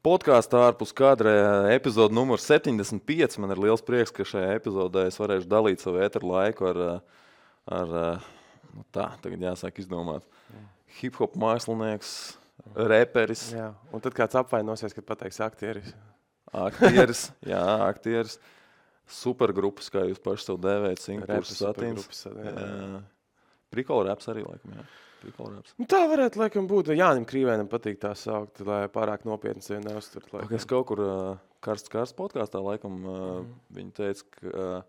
podkāstā ārpus kadra epizode numur 75. Man ir liels prieks, ka šajā epizodē es varēšu dalīt savu ēteru laiku tagad jāsāk izdomāt. Hip-hop mākslinieks, reperis. Jā, un tad kāds apvainosies, kad pateiks aktieris. Aktieris. Supergrupas, kā jūs paši sev dēvējat, Singapūras satīns. Prikola raps arī, laikam, jā. Tā varētu, laikam, būt. Jānim Krīvēnam patīk tā saukt, lai pārāk nopietni sevi neuztvert. Es kaut kur karsts podkāstā, laikam, viņi teica, ka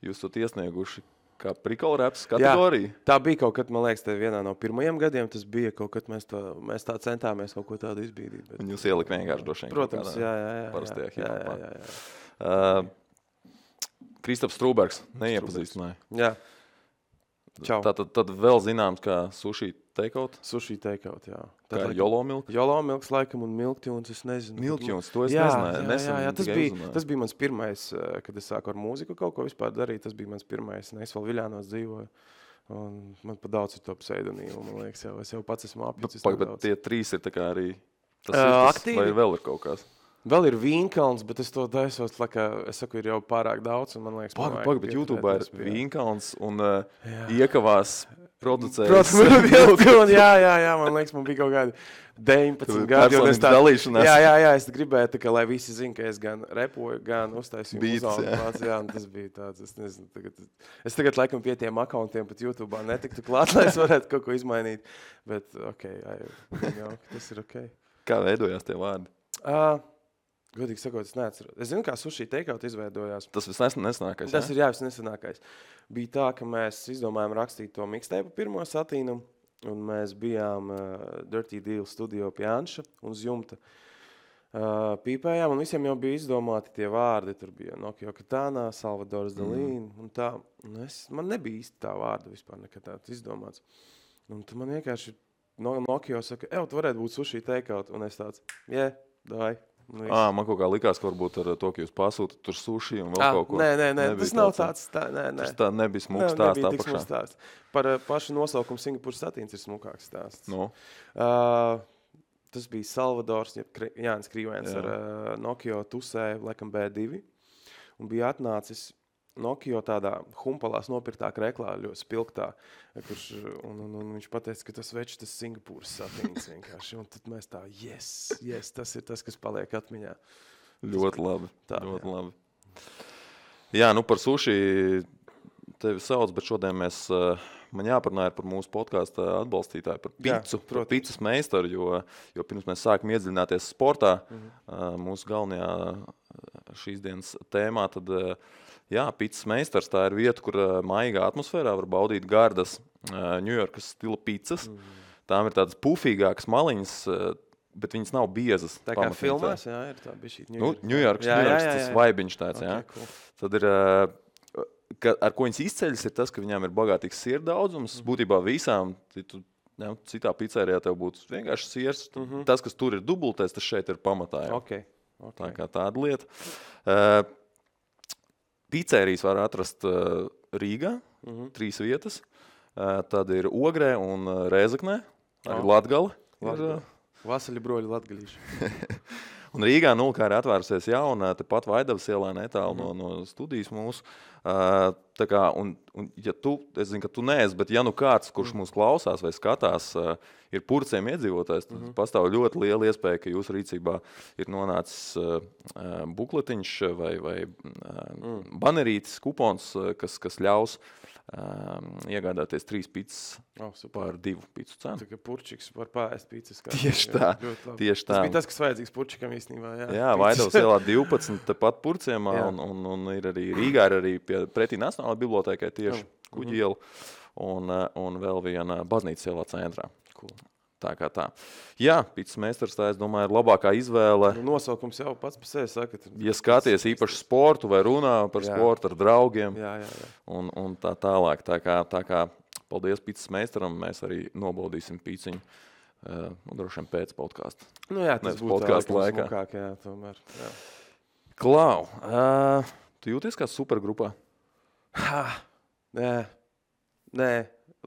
jūs esat iesnieguši kā prikola raps kategoriju. Jā, tā bija kaut kad, man liekas, vienā no pirmajiem gadiem. Tas bija kaut kad, mēs tā centāmies kaut ko tādu izbīdīt. Bet... Un jūs ielika vienkārši droši vien. Protams, jā. Parastajā hip-hopā. Kristaps Strūbergs neiepazīstināja. Jā. Čau. Tad vēl zināms, kā sushi takeout. Sushi takeout, jā. Kā Jolo Milk? Jolo Milks, laikam, un Milktunes, es nezinu. Milktunes, to es nezināju. Jā, tas bija mans pirmais, kad es sāku ar mūziku kaut ko vispār darīt. Tas bija mans pirmais, es vēl Viļānos dzīvoju. Un man pa daudz ir to pseidonīmu, man liekas, es jau pats esmu apjucis. Bet tie trīs ir tā kā arī tas vai vēl ir kaut kāds? Vēl ir Vīnkalns, bet es to taisos, es saku, ir jau pārāk daudz, un man liekas... Pagaid, bet YouTubā ir Vīnkalns un iekavās producējis. Protams, jā, man liekas, man bija kaut kādi 19 gadi. Dalīšanās. Jā, es gribēju, tā, lai visi zina, ka es gan repoju, gan uztaisīju muzālu. Jā, un tas bija tāds, es nezinu, es tagad laikam pie tiem akauntiem pat YouTubā netiktu klāt, lai es varētu kaut ko izmainīt, bet tas ir ok. Kā veidojās tie vārdi? Godīgi sakot, es neatceros. Es zinu, kā sushi takeout izveidojās. Tas visnesenākais, Tas ir visnesenākais. Bija tā, ka mēs izdomājām rakstīt to mixtape pirmo satīnu, un mēs bijām Dirty Deal studio pie Anša un uz jumta pīpējām, un visiem jau bija izdomāti tie vārdi. Tur bija Nokio Katana, Salvadors Dalīn, un tā. Man nebija īsti tā vārda vispār nekad tāds izdomāts. Un tu man vienkārši Nokio saka, tu varētu būt sushi takeout, un es tāds, davai. Man kaut kā likās, ka varbūt ar to, ka jūs pasūtat tur suši un vēl kaut ko. Nē, tas nav tāds. Tas tā nebija smuks stāsts apakšā. Par pašu nosaukumu Singapūras satīns ir smukāks stāsts. No. Tas bija Salvadors, Jānis Krīvēns ar Nokio tusē, laikam B2, un bija atnācis Nokio tādā humpalās nopirktā kreklā, ļoti spilgtā, un viņš pateica, ka tas večs, tas Singapūras satīns vienkārši. Un tad mēs tā, yes, tas ir tas, kas paliek atmiņā. Ļoti labi. Labi. Jā, par suši tevi sauc, bet šodien man jāparunāja par mūsu podkāstu atbalstītāju, par picu, par picas meistaru, jo pirms mēs sākam iedziļināties sportā, mūsu galvenajā šīs dienas tēmā, tad picas meistars, tā ir vieta, kur maigā atmosfērā var baudīt gardas Ņujorkas stila picas. Tām ir tādas pufīgākas maliņas, bet viņas nav biezas. Tā kā filmās, ir tā bišķīt Ņujorkas, tas vaibiņš tāds, Cool. Tad ir, ar ko viņas izceļas, ir tas, ka viņām ir bagātīgs sieru daudzums. Būtībā visām, citā pizzērijā tev būtu vienkārši siers. Tas, kas tur ir dubultais, tas šeit ir pamatā. Okay. Tā kā tāda lieta. Pizzērijas var atrast Rīgā, 3 vietas. Tad ir Ogrē un Rēzaknē, arī Latgale. Vasaļi broļi latgalīši. Un Rīgā kā ir atvērusies jauna, tepat Vaidavas ielā netālu no studijas mūsu. Tā kā, un ja es zinu, ka tu neesi, bet ja kāds, kurš mūs klausās vai skatās, ir Purciem iedzīvotājs, tad pastāv ļoti liela iespēja, ka jūsu rīcībā ir nonācis bukletiņš vai banerītis, kupons, kas ļaus iegādāties 3 pizzas par 2 pizzu cenu. Tā kā Purčiks var pārēst pizzas. Tieši tā. Tas bija tas, kas vajadzīgs Purčikam īstenībā. Jā, Vaidavas ielā 12, tepat Purciemā, un ir arī Rīgā, ir arī pretī Nacionālajai bibliotēkai tieši Kuģi iela, un vēl viena baznīcas ielā centrā. Cool. Tā kā tā. Jā, pizzas meistars, tā es domāju, ir labākā izvēle. Nosaukums jau pats par sevi saka. Ja skaties īpaši sportu vai runā par sportu ar draugiem un tā tālāk. Tā kā paldies pizzas meistaram, mēs arī nobaudīsim pizziņu droši vien pēc podkāsta. Tas būtu smukāk, tomēr. Jā. Klau, tu jūties kā supergrupā? Nē,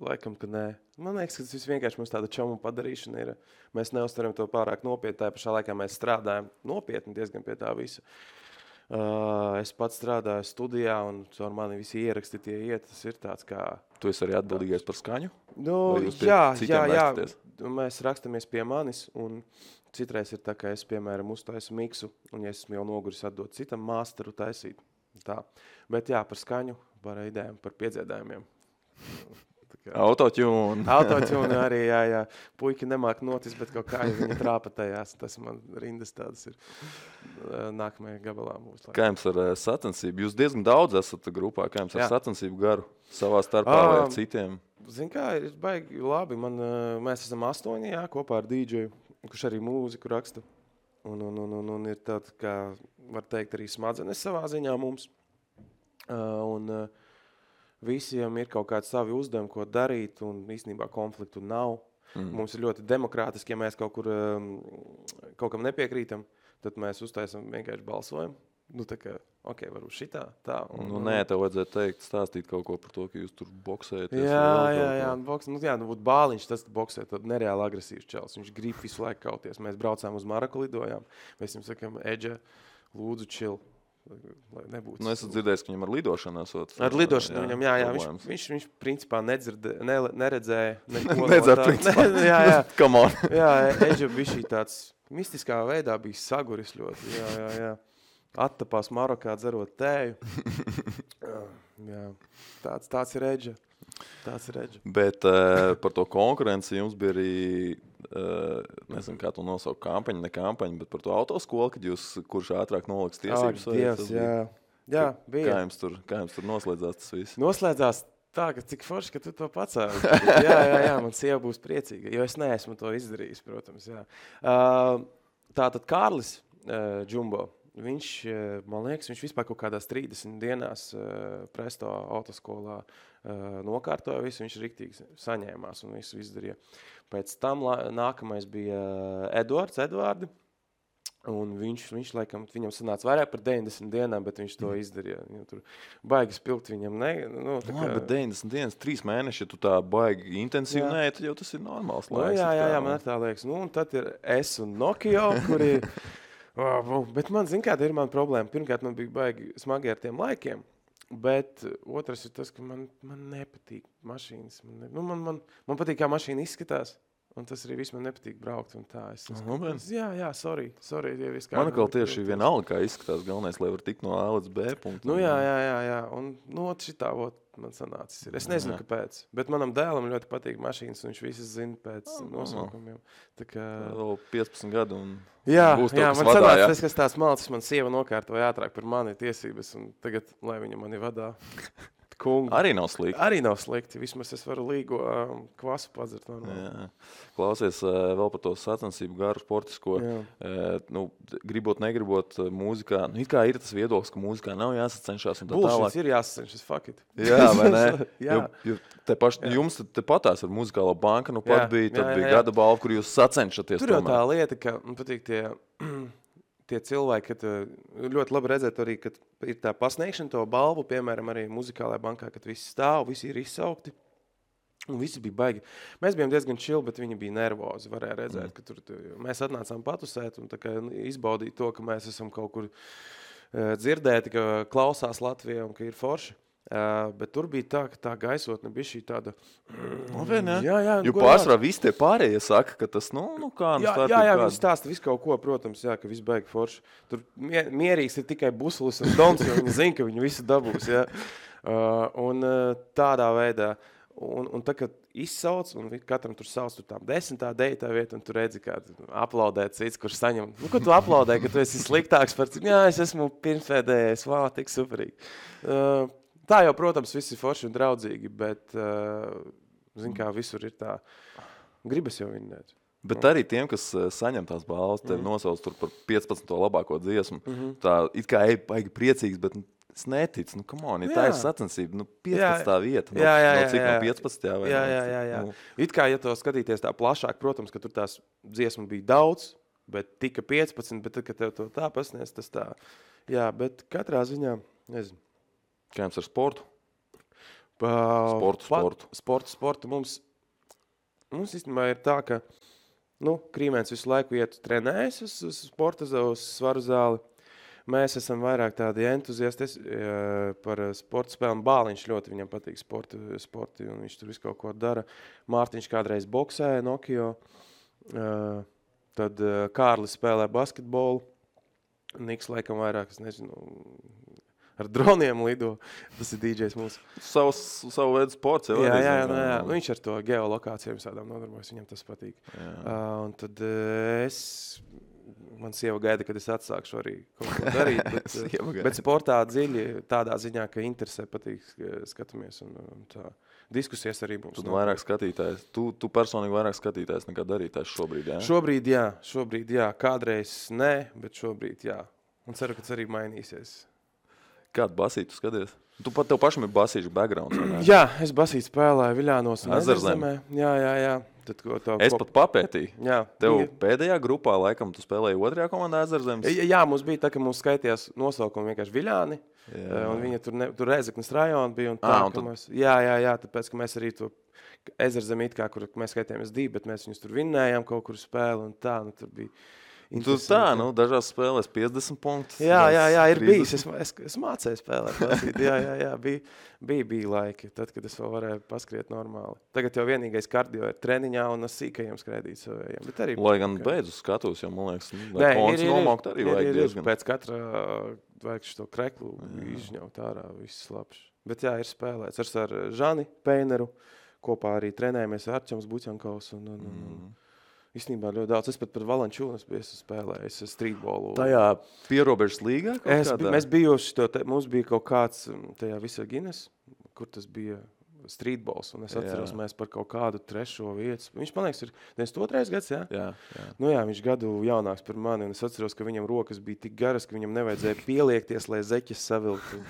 laikam, ka nē. Man liekas, ka tas vienkārši mums tāda čauma padarīšana ir. Mēs neuztveram to pārāk nopietni. Tā pašā laikā mēs strādājam nopietni diezgan pie tā visa. Es pats strādāju studijā, un ar mani visi ieraksti tie iet. Tas ir tāds kā... Tu esi arī atbildīgais par skaņu? Nu, jā. Mēs rakstamies pie manis, un citreiz ir tā, ka es, piemēram, uztaisu miksu, un ja esmu jau noguris atdot citam māsteru taisīt. Tā. Bet jā, par skaņu, par idejām, par piedziedājumiem. Autotune arī, jā. Puiki nemāk notis, bet kaut kā viņi trāpa tajās. Tas man rindas tādas ir nākamajā gabalā mūsu. Kā jums ar sacensību? Jūs diezgan daudz esat grupā. Kā jums ar sacensību garu savā starpā vai ar citiem? Zin kā, ir baigi labi. Mēs esam 8, jā, kopā ar DJ, kurš arī mūziku raksta. Un ir tāda, kā var teikt, arī smadzenes savā ziņā mums. Visiem ir kaut kādi savi uzdevumi, ko darīt, un īstenībā konfliktu nav. Mums ir ļoti demokrātiski, ja mēs kaut kam nepiekrītam, tad mēs uztaisam vienkārši balsojumu. Nu, tā kā, varbūt šitā, tā. Nē, tev vajadzētu teikt, stāstīt kaut ko par to, ka jūs tur boksējaties. Jā, būtu Bāliņš, tas boksē, tad nereāli agresīvs čels. Viņš grib visu laiku kauties. Mēs braucām uz Maraku, lidojām. Mēs viņam sakām, Edža, lūdzu, chill. Es dzirdēju, ka viņam ar lidošanu esot. Ar lidošanu viņam, jā. Viņš principā neredzēja neko. Jā. Come on. Jā, Edža bija šī tāds mistiskā veidā bija saguris ļoti. Jā. Attapās Marokā dzerot tēju. Jā. Tāds ir Edža. Bet par to konkurenci jums bija arī, nezinu, kā to nosaukt, kampaņa, ne kampaņa, bet par to autoskolu, kad jūs, kurš ātrāk noliks tiesības? Jā, bija. Kā jums tur noslēdzās tas viss? Noslēdzās tā, ka cik forši, ka tu to pacēli. Jā, man sieva būs priecīga, jo es neesmu to izdarījis, protams, jā. Tātad Kārlis Džumbo, viņš, man liekas, viņš vispār kaut kādās 30 dienās Presto autoskolā nokārtoja visu, viņš riktīgi saņēmās un visu izdarīja. Pēc tam nākamais bija Edvardi, un viņš laikam, viņam sanāca vairāk par 90 dienām, bet viņš to izdarīja. Tur baigi spilgt viņam. Bet 90 dienas, 3 mēneši, ja tu tā baigi intensīvi nē, tad jau tas ir normāls laiks. Jā, man tā liekas. Un tad ir es un Nokio, kuri... Bet man, zin kā, ir man problēma. Pirmkārt, man bija baigi smagi ar tiem laikiem. Bet otrs ir tas, ka man nepatīk mašīnas. Man patīk, kā mašīna izskatās. Un tas arī viss man nepatīk braukt. Un tā. Jā, sorry. Man atkal tieši vienalga, kā izskatās galvenais, lai var tikt no A līdz B punktu. Jā. Un šitā man sanācis ir. Es nezinu, kāpēc. Bet manam dēlam ļoti patīk mašīnas, un viņš visas zina pēc nosaukumiem. Tā kā... Vēl 15 gadu un... Jā, man sanāca tas, kas tās malcis, man sieva nokārtoja ātrāk par mani tiesības, un tagad, lai viņa mani vadā. Kungu. Arī nav slikti. Vismaz es varu līgo kvasu padzert. Klausies vēl par to sacensību garu sportisko. Gribot, negribot mūzikā. It kā ir tas viedoklis, ka mūzikā nav jāsacenšās. Bullshit ir jāsacenšas, fuck it. Jā, vai ne? Jums te patās ar muzikālo banka, pat bija, tad bija gada balva, kur jūs sacenšaties. Tur jau tā lieta, ka man patīk tie cilvēki, kad ļoti labi redzēt arī, kad ir tā pasniegšana to balvu, piemēram, arī muzikālajā bankā, kad visi stāv, visi ir izsaukti, un visi bija baigi. Mēs bijām diezgan chill, bet viņi bija nervozi, varēja redzēt, ka tur mēs atnācām patusēt un tā kā izbaudīt to, ka mēs esam kaut kur dzirdēti, ka klausās Latvijā un ka ir forši. Bet tur bija tā, ka tā gaisotne bija šī tāda... Jā, jo pārsvarā visi tie pārējie saka, ka tas, kā... Jā, viņi stāsta visu kaut ko, protams, jā, ka viss baigi forši. Tur mierīgs ir tikai Busulis un Dons, jo viņi zina, ka viņi visu dabūs, jā. Un tādā veidā... Un tā, kad izsauc, un katram tur sauc tur tām 10. deitā vieta, un tu redzi, kā aplaudē cits, kurš saņem. Ko tu aplaudē, ka tu esi sliktāks par cik? Jā, es esmu pirmsvēdējais, tik superīgi. Tā jau, protams, viss ir forši un draudzīgi, bet, zin kā, visur ir tā, gribas jau vinnēt. Bet arī tiem, kas saņem tās balvas, tevi nosauc tur par 15. labāko dziesmu, tā it kā baigi priecīgs, bet es neticu, come on, tā ir sacensība, 15. vieta, cik no 15. vai? Jā. It kā, ja to skatīties tā plašāk, protams, ka tur tās dziesmu bija daudz, bet tika 15, bet tad, kad tev to tā pasniedz, tas tā, jā, bet katrā ziņā, nezinu. Kā jums ar sportu? Sportu mums mums īstenībā ir tā, ka Krīmēns visu laiku trenējas uz sporta, uz svaru zāli. Mēs esam vairāk tādi entuziasti par sporta spēlēm. Bāliņš ļoti viņam patīk sporti, un viņš tur visu kaut ko dara. Mārtiņš kādreiz boksēja Nokio, tad Kārlis spēlē basketbolu. Niks laikam vairāk, es nezinu, ar droniem lido. Tas ir DJs mūsu. Savu veidu sports. Jā. Viņš ar to geolokācijām sādām nodarbojas, viņam tas patīk. Un tad man sieva gaida, kad es atsākšu arī kaut ko darīt, bet sportā dziļi tādā ziņā, ka interesē patīk skatāmies un tā. Diskusijas arī mums. Tu vairāk skatītājs. Tu personīgi vairāk skatītājs nekā darītājs šobrīd, jā? Šobrīd jā. Kādreiz ne, bet šobrīd jā. Un ceru, ka tas arī mainīsies. Kādu basītu skaties? Tev pašam ir basīšu backgrounds, vai ne? Jā, es basītu spēlēju Viļānos un Ezerzemē. Jā. Es pat papētīju. Jā. Tev pēdējā grupā, laikam, tu spēlēji otrajā komandā Ezerzemes? Jā, mums bija tā, ka mums skaitījās nosaukumi vienkārši Viļāni. Un viņa tur Rēzeknes rajona bija. Un tā, Jā, tāpēc, ka mēs arī to Ezerzemi kur mēs skaitījāmies 2, bet mēs viņus tur vinnējām kaut kur spēli un tā, tur bija. Tu dažās spēlēs 50 punktus. Jā, ir bijis. Es mācēju spēlēt. Jā, bija laiki, tad, kad es vēl varēju paskriet normāli. Tagad jau vienīgais kardio ir treniņā un sīkajiem skrēdīt savējiem. Lai gan beidz uz skatos, jo, man liekas, kons nomaukt arī vajag diezgan. Pēc katra vajag šo kreklu izņaut ārā, viss labs. Bet jā, ir spēlēts ar Žani Peineru, kopā arī trenējamies ar Arčams Buķankaus un īstenībā ļoti daudz. Es pat par Valančūnas biju spēlējis streetbolu. Tajā pierobežas līgā? Mēs bijuši, mums bija kaut kāds tajā Visagines, kur tas bija streetbols, un es atceros, mēs par kaut kādu 3. vietu. Viņš, man liekas, ir 92. gads, jā? Jā. Viņš gadu jaunāks par mani, un es atceros, ka viņam rokas bija tik garas, ka viņam nevajadzēja pieliekties, lai zeķis savilktu.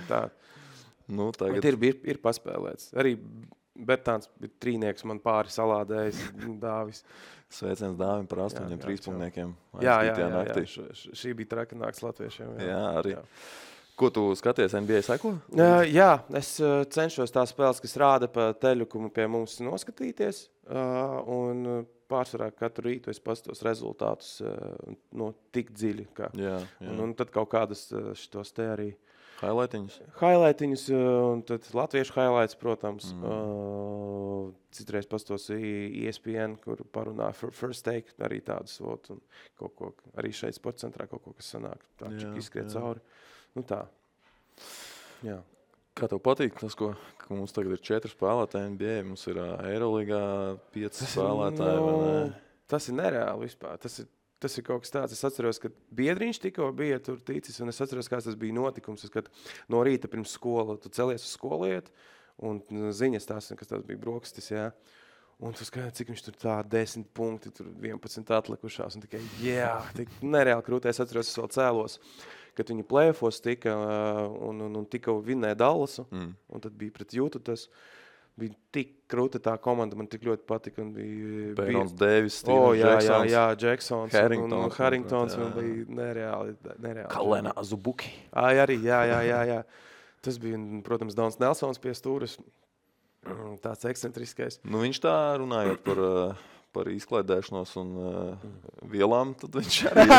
Tā. Tagad ir paspēlēts. Arī Bertāns bija trīnieks, man pāri salādējis Dāvis. Sveiciens Dāvim par 8 trīspunktniekiem. Jā. Šī bija traka nakts latviešiem. Jā, arī. Jā. Ko tu skaties, NBA seko? Jā, es cenšos tās spēles, kas rāda pa teļukumu pie mums noskatīties. Un pārsvarā katru rītu es pastos rezultātus tik dziļi. Jā. Un tad kaut kādas šitos te arī Highlightiņus, un tad latviešu highlights, protams. Citreiz pastos ESPN, kur parunā First Take, arī tādus vot, un kaut ko, arī šeit sporta centrā kaut ko, kas sanāk. Tā čik izskriet cauri. Tā. Jā. Kā tev patīk tas, ka mums tagad ir 4 spēlētāji NBA, mums ir Eirolīgā 5 spēlētāji, vai ne? Tas ir nereāli vispār. Tas ir kaut kas tāds. Es atceros, ka Biedriņš tikko bija tur ticis, un es atceros, kāds tas bija notikums. Kad no rīta pirms skola, tu celies uz skolu iet, un ziņas tās, kas tās bija brokastis, jā. Un tu skaties, cik viņš tur tā 10 punkti, tur 11 atlikušās, un tikai, tik nereāli krūtē. Es atceros, es vēl cēlos, kad viņi play-offos tika, un tikko vinnēja Dallasu, un tad bija pret Jūtu tas. Bija tik krūta tā komanda, man tik ļoti patika. Bairons Davis, Jacksons. Jā, Jacksons. Harringtons un bija nereāli. Kalena Azubuki. Arī, jā. Tas bija, protams, Dons Nelsons pie stūras. Tāds ekscentriskais. Viņš tā runājot par izklaidēšanos un vielām, tad viņš arī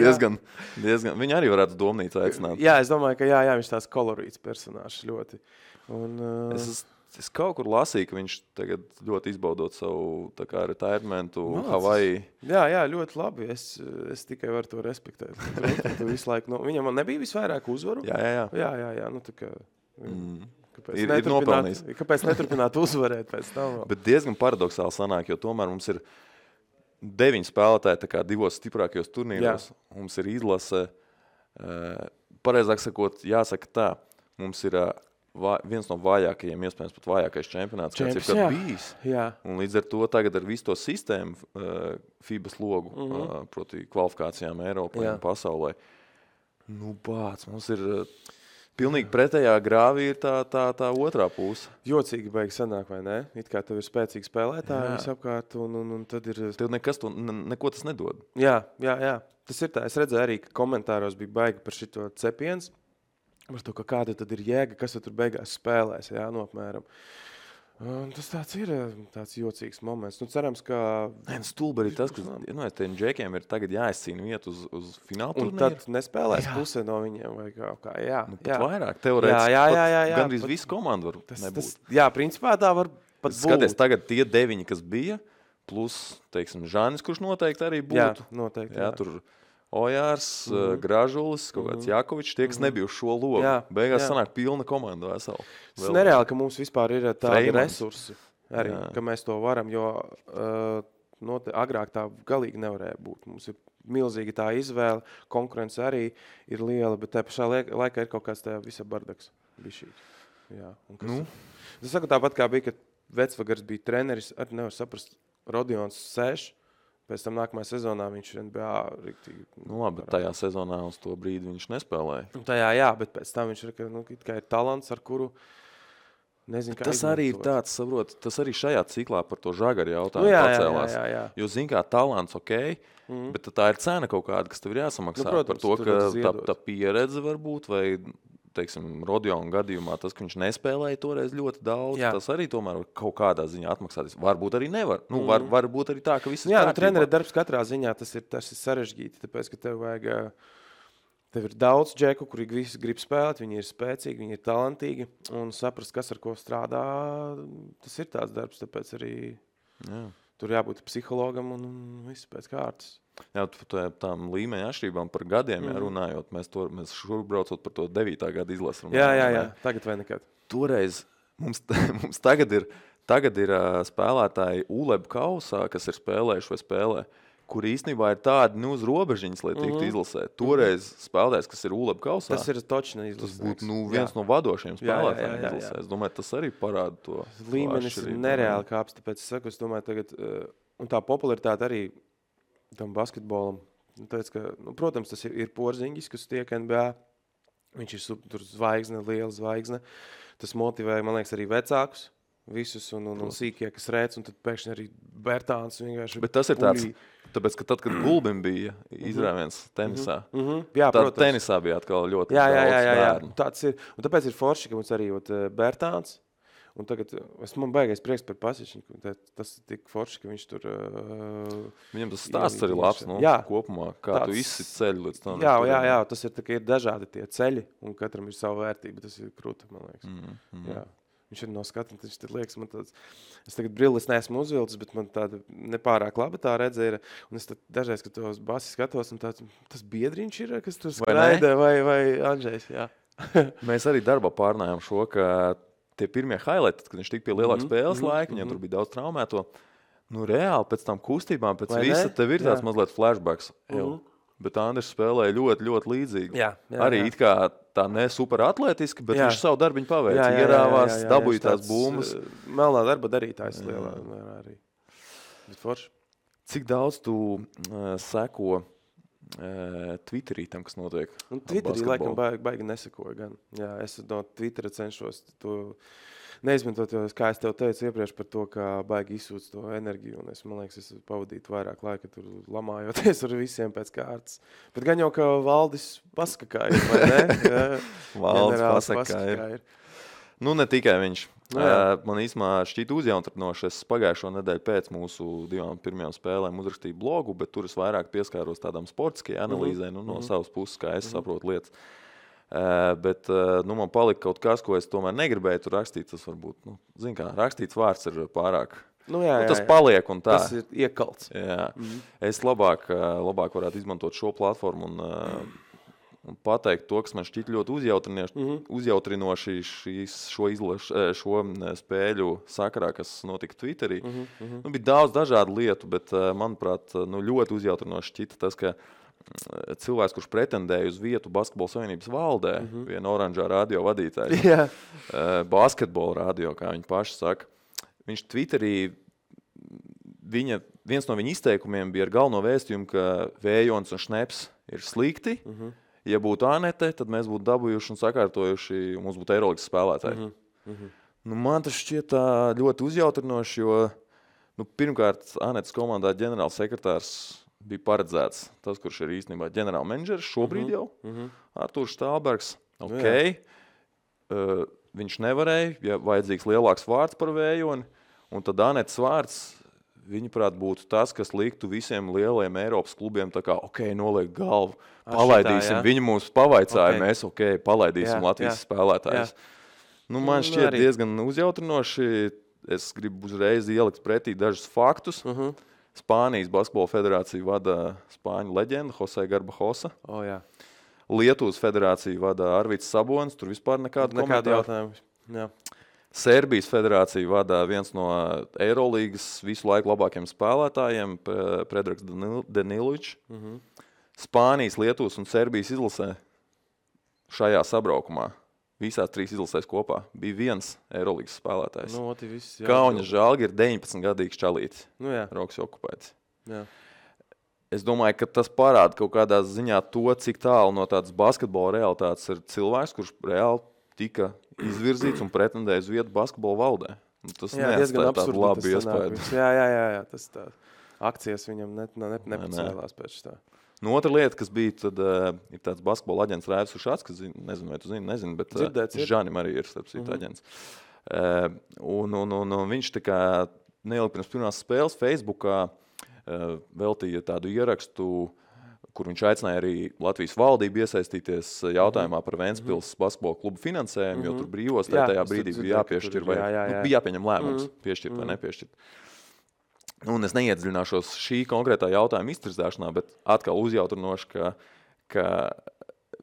diezgan. Viņi arī varētu domnīcu aicināt. Jā, es domāju, ka viņš tās kolorīts personāžs ļoti. Es kaut kur lasīju, ka viņš tagad ļoti izbaudot savu retirementu Havaji. Jā, ļoti labi. Es tikai varu to respektēt. Visu laiku, viņam nebija visvairāk uzvaru? Jā. Kāpēc neturpināt uzvarēt pēc tam? Bet diezgan paradoxāli sanāk, jo tomēr mums ir 9 spēlētāji 2 stiprākajos turnīros. Mums ir izlase, pareizāk sakot, jāsaka tā, mums ir viens no vājākajiem, iespējams pat vājākais čempionāts, kāds ir kad bijis. Jā. Un līdz ar to tagad ar visu to sistēmu FIBAs logu, proti kvalifikācijām Eiropā un pasaulē. Mums ir pilnīgi pretējā grāvī ir tā otrā puse. Jocīgi baigi sanāk, vai ne? It kā tev ir spēcīgi spēlētāji visapkārt, un tad ir... Tev neko tas nedod. Jā. Tas ir tā. Es redzēju arī, ka komentāros bija baigi par šito cepiens. Par to, ka kāda tad ir jēga, kas tur beigās spēlēs, apmēram. Tas tāds jocīgs moments. Nu, cerams, ka... Stulbi arī tas, ka tiem džekiem ir tagad jāizcīna vietu uz fināla turnīru. Un tad nespēlēs pusē no viņiem vai kā. Jā, pat vairāk. Teorētiski gandrīz visu komandu var nebūt. Jā, principā tā var pat būt. Skaties, tagad tie 9, kas bija, plus, teiksim, Žanis, kurš noteikti arī būtu. Jā, noteikti. Jā, tur Ojārs, Gražulis, kaut kāds Jakovičs, tie, kas nebija uz šo logu. Beigās sanāk pilna komanda vesela. Tas nereāli, ka mums vispār ir tādi resursi arī, ka mēs to varam, jo agrāk tā galīgi nevarēja būt. Mums ir milzīga tā izvēle, konkurence arī ir liela, bet tā pašā laikā ir kaut kāds tajā visa bardaks. Es saku tāpat, kā bija, ka Vecvagars bija treneris, arī nevar saprast, Rodions sēž. Pēc tam nākamajā sezonā viņš NBA riktīgi... Labi, tajā sezonā uz to brīdi viņš nespēlēja. Tajā, bet pēc tam viņš ir talants, ar kuru nezinu, kā tas arī ir tāds, saprot, tas arī šajā ciklā par to Žagaru jautājumu pacēlās. Jā. Jo, zin kā, talants bet tā ir cena kaut kāda, kas tev ir jāsamaksā. Protams, par to, ka tā pieredze var būt, vai... Teiksim, Rodiona gadījumā tas, ka viņš nespēlēja toreiz ļoti daudz, tas arī tomēr kaut kādā ziņā atmaksāties. Varbūt arī nevar. Varbūt arī tā, ka viss ir kārtībā. Trenera darbs katrā ziņā tas ir sarežģīti, tāpēc, ka tev ir daudz džeku, kuri visi grib spēlēt, viņi ir spēcīgi, viņi ir talantīgi, un saprast, kas ar ko strādā, tas ir tāds darbs, tāpēc arī tur jābūt psihologam un viss pēc kārtas. Jā, tām līmeņa atšķirībām par gadiem runājot, mēs šurp braucot par to 9. gada izlasu. Jā, tagad vai nekad. Toreiz mums tagad ir spēlētāji ULEB kausā, kas ir spēlējuši vai spēlē, kur īstenībā ir tādi uz robežiņas, lai tiktu izlasēt. Toreiz spēlētājs, kas ir ULEB kausā, tas ir točni izlasēts. Tas būtu viens no vadošiem spēlētājiem izlasēt. Es domāju, tas arī parāda to. Līmenis ir nereāli kāps, tāpēc es domāju tagad, un tā popularitāte arī tam basketbolam. Protams, tas ir Porziņģis, kas tiek NBA. Viņš ir tur zvaigzne, liela zvaigzne. Tas motivē, man liekas, arī vecākus visus un sīkie, kas rēc, un tad pēkšņi arī Bertāns vienkārši... Bet tas ir tāds, tāpēc, ka tad, kad Gulbim bija izrāviens tenisā, Jā, tad tenisā bija atkal ļoti daudz bērnu. Tāds ir. Un tāpēc ir forši, ka mums arī Bertāns. Un tagad man baigais prieks par Pasičiņu. Tas ir tik forši, ka viņš tur... Viņam tas stāsts arī labs, kopumā, kā tu izsit ceļu līdz tam. Jā, tas ir, ir dažādi tie ceļi, un katram ir sava vērtība. Tas ir krūti, man liekas. Jā. Viņš ir no skatu, viņš tad liekas, man tāds... Es tagad brilles neesmu uzvilcis, bet man tāda nepārāk laba tā redze ir. Un es tad dažreiz, kad tos basi skatos, un tas biedriņš ir, kas tur skraida, vai Andžejs, jā. Mēs arī darbā pārnājām šo, ka tie pirmie highlighti, kad viņš tika pie lielāka spēles laika, viņam tur bija daudz traumēto. Reāli pēc tam kustībām, pēc visa, tev ir tāds mazliet flashbacks. Bet Andris spēlēja ļoti, ļoti līdzīgi. Arī it kā tā ne super atlētiski, bet viņš savu darbiņu paveica. Ierāvās, dabūja tās bumbas. Melnā darba darītājs lielā arī. Bet forši. Cik daudz tu seko Twitterī tam, kas notiek? Twitterī laikam baigi nesekoju gan. Jā, es no Twittera cenšos to neizmantot, kā es tev teicu iepriekš par to, kā baigi izsūc to enerģiju. Un man liekas, es pavadītu vairāk laika tur lamājoties ar visiem pēc kārtas. Bet gan jau, ka Valdis paskakāja, vai ne? Valdis paskakāja. Ne tikai viņš. Man īstumā šķiet uzjautrinoši. Es pagājušo nedēļu pēc mūsu 2 pirmajām spēlēm uzrakstīju blogu, bet tur es vairāk pieskāros tādām sportiskajai analīzē, no savas puses, kā es saprotu lietas. Bet man palika kaut kas, ko es tomēr negribēju tur rakstīt. Tas varbūt, zin kā, rakstīts vārds ir pārāk. Tas paliek un tā. Tas ir iekalts. Jā. Es labāk varētu izmantot šo platformu un pateikt to, kas man šķiet ļoti uzjautrinoši šo spēļu sakarā, kas notika Twitterī. Bija daudz dažādu lietu, bet, manuprāt, ļoti uzjautrinoši šķita tas, ka cilvēks, kurš pretendēja uz vietu Basketbola Savienības valdē, viena oranžā radio vadītāja, basketbola radio, kā viņi paši saka, viņš Twitterī, viens no viņa izteikumiem bija ar galveno vēstījumu, ka Vējons un Šneps ir slikti. Ja būtu Anete, tad mēs būtu dabūjuši un sakārtojuši, un mums būtu Eirolandes spēlētāji. Man tas šķiet ļoti uzjautrinoši, jo pirmkārt Anetes komandā ģenerāls sekretārs bija paredzēts tas, kurš ir īstenībā ģenerāla menedžeris šobrīd jau, Artūrs Štālbergs. viņš nevarēja, ja vajadzīgs lielāks vārds par Vējoni, un tad Anetes vārds, viņaprāt, būtu tas, kas liktu visiem lielajiem Eiropas klubiem tā kā, noliek galvu, palaidīsim, viņi mums pavaicāja, mēs, palaidīsim Latvijas spēlētājus. Man šķiet diezgan uzjautrinoši, es gribu uzreiz ielikt pretī dažus faktus. Spānijas basketbola federāciju vada spāņu leģenda Jose Garbajosa. Lietuvas federāciju vada Arvids Sabonis, tur vispār nekādu jautājumu. Serbijas federāciju vada viens no Eirolīgas visu laiku labākiem spēlētājiem, Predrags Danilovičs. Spānijas, Lietuvas un Serbijas izlasē šajā sabraukumā, visās 3 izlasēs kopā, bija viens Eirolīgas spēlētājs. Kauņa Žalgiris ir 19-gadīgs čalītis. Rokas okupēts. Es domāju, ka tas parāda kaut kādā ziņā to, cik tālu no tādas basketbola realitātes ir cilvēks, kurš reāli tika izvirzīts un pretendēja uz vietu basketbola valdē. Tas diezgan tādu labu iespēju. Jā, tas tā. Akcijas viņam nepacēlās pēc tā. Otra lieta, kas bija, tad ir tāds basketbola aģents Rēvis Ušats, kas, nezinu, vai tu nezinu, bet Žanim arī ir starp citu aģents. Un viņš tā kā neilgi pirms pirmās spēles Facebookā veltīja tādu ierakstu, kur viņš aicināja arī Latvijas valdību iesaistīties jautājumā par Ventspils basketbola klubu finansējumu, jo tur brīvos tajā brīdī bija jāpiešķir vai bija jāpieņem lēmums piešķirt vai nepiešķirt. Un es neiedziļināšos šī konkrētā jautājuma iztirzāšanā, bet atkal uzjautrinoši, ka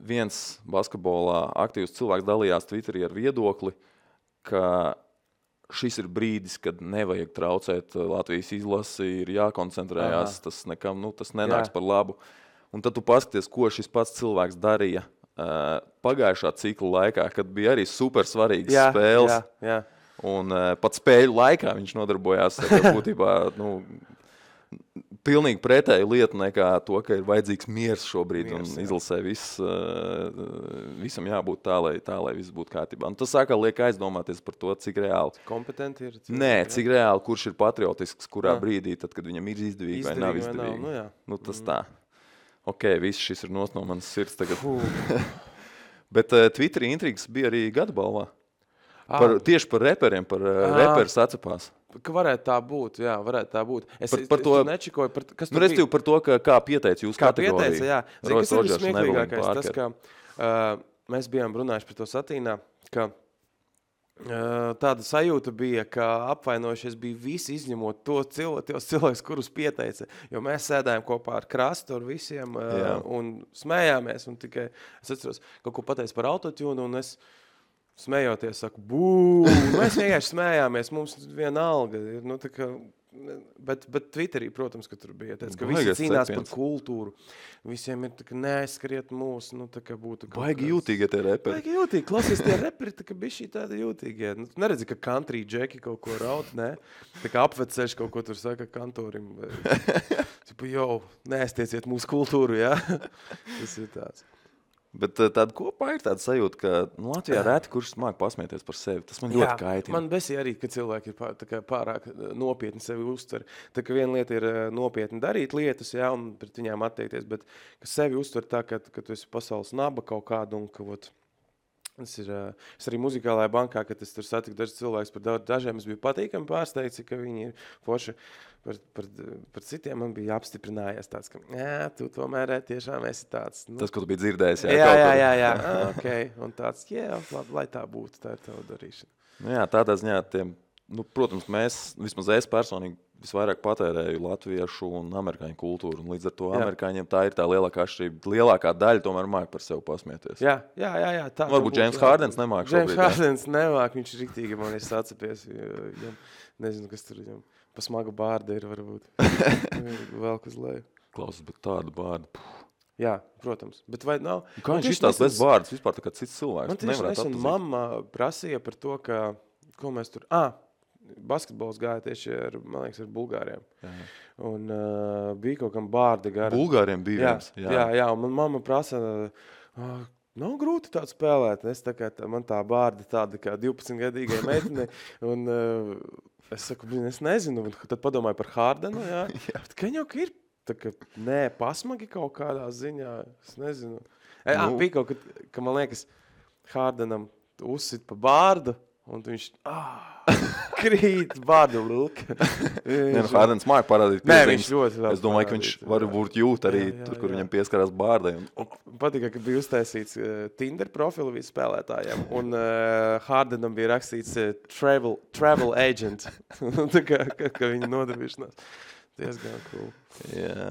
viens basketbolā aktīvs cilvēks dalījās Twitterī ar viedokli, ka šis ir brīdis, kad nevajag traucēt Latvijas izlasi, ir jākoncentrējās, tas nekam, tas nenāks par labu. Un tad tu paskaties, ko šis pats cilvēks darīja pagājušā cikla laikā, kad bija arī super svarīgas spēles. Un pat spēļu laikā viņš nodarbojās būtībā pilnīgi pretēju lietu nekā to, ka ir vajadzīgs miers šobrīd un izlasē visam jābūt tā, lai viss būtu kārtībā. Un tas sākā liek aizdomāties par to, cik reāli. Kompetenti ir? Cik reāli, kurš ir patriotisks, kurā brīdī, tad, kad viņam ir izdevīgi vai nav izdevīgi. Tas tā. Viss šis ir no manas sirds tagad. Bet Twitterī intrigas bija arī gada balvā. Tieši par reperiem, par reperis atcepās. Ka varētu tā būt, varētu tā būt. Es nečikoju, kas tur bija. Par to, kā pieteica jūsu kategoriju. Kā pieteica, Zin, kas ir smieklīgākais? Tas, ka mēs bijām runājuši par to satīnā, ka tāda sajūta bija, ka apvainojušies bija visi izņemot tos cilvēkus, kurus pieteica. Jo mēs sēdājām kopā ar Krastu, ar visiem un smējāmies. Un tikai es atceros, kaut ko pateicu par autotune, un es smējoties, saku, mēs vienkārši smējāmies, mums vienalga ir, bet Twitterī, protams, ka tur bija tāds, ka visi cīnās par kultūru, visiem ir tā, ka neaizskriet mūs, tā kā būtu kaut baigi jūtīgi tie reperi. Baigi jūtīgi, klausies tie reperi, tā kā bišķi tādi jūtīgi. Neredzi, ka country džeki kaut ko raud, ne? Tā kā apveceši kaut ko tur saka kantorim. Neaiztieciet mūsu kultūru, jā? Tas ir tāds. Bet tāda kopā ir tāda sajūta, ka Latvijā reti, kurš māk pasmieties par sevi. Tas man ļoti kaitina. Man besī arī, ka cilvēki ir pārāk nopietni sevi uztver. Tā kā viena lieta ir nopietni darīt lietas, un pret viņām attiekties, bet ka sevi uztver tā, ka tu esi pasaules naba kaut kādu un ka es arī muzikālajā bankā, kad es tur satiku dažus cilvēkus par dažiem, es biju patīkami pārsteigts, ka viņi ir forši. Par citiem man bija apstiprinājies tāds, ka tu tomēr tiešām esi tāds. Tas, ko tu biji dzirdējis. Jā. Un tāds, labi, lai tā būtu, tā ir tava darīšana. Tādā ziņā protams, vismaz es personīgi visvairāk patērēju latviešu un amerikāņu kultūru, un līdz ar to amerikāņiem tā ir tā lielākā atšķirība. Lielākā daļa tomēr māk par sevi pasmieties. Jā. Tā varbūt James Hardens nemāk šobrīd. James Hardens nemāk, viņš riktīgi man ir sacepies. Nezinu, kas tur viņam pa smagu bārdu ir varbūt. Velk uz leju. Klausas, bet tāda bārda. Jā, protams. Bet vai nav? Kā viņš izstās bez bārdas vispār tā kā cits cilvēks? Man tieši nesen mamma prasīja par to, ka, ko mēs tur... basketbols gāja tieši ar Bulgāriem. Un bija kaut kam bārda gara. Bulgāriem bija viens. Jā, un man mamma prasa, nav grūti tādu spēlēt. Es man tā bārda tāda kā 12-gadīgai meitene. Un es saku, es nezinu. Un tad padomāju par Hardenu. Bet ka jau ir tā, ka pasmagi kaut kādā ziņā. Es nezinu. Bija kaut, ka man liekas, Hardenam uzsit pa bārdu, un viņš krīt bārdu lūka. Hārdens māk parādīt Nē, piezīmes. viņš ļoti labi Es domāju, ka viņš varbūt jūt arī tur, kur viņam pieskarās bārdai. Patika, ka bija uztaisīts Tinder profilu visu spēlētājiem, un Hardenam bija rakstīts travel agent. Tā kā viņa nodarbīšanās. Diezgan cool. Jā.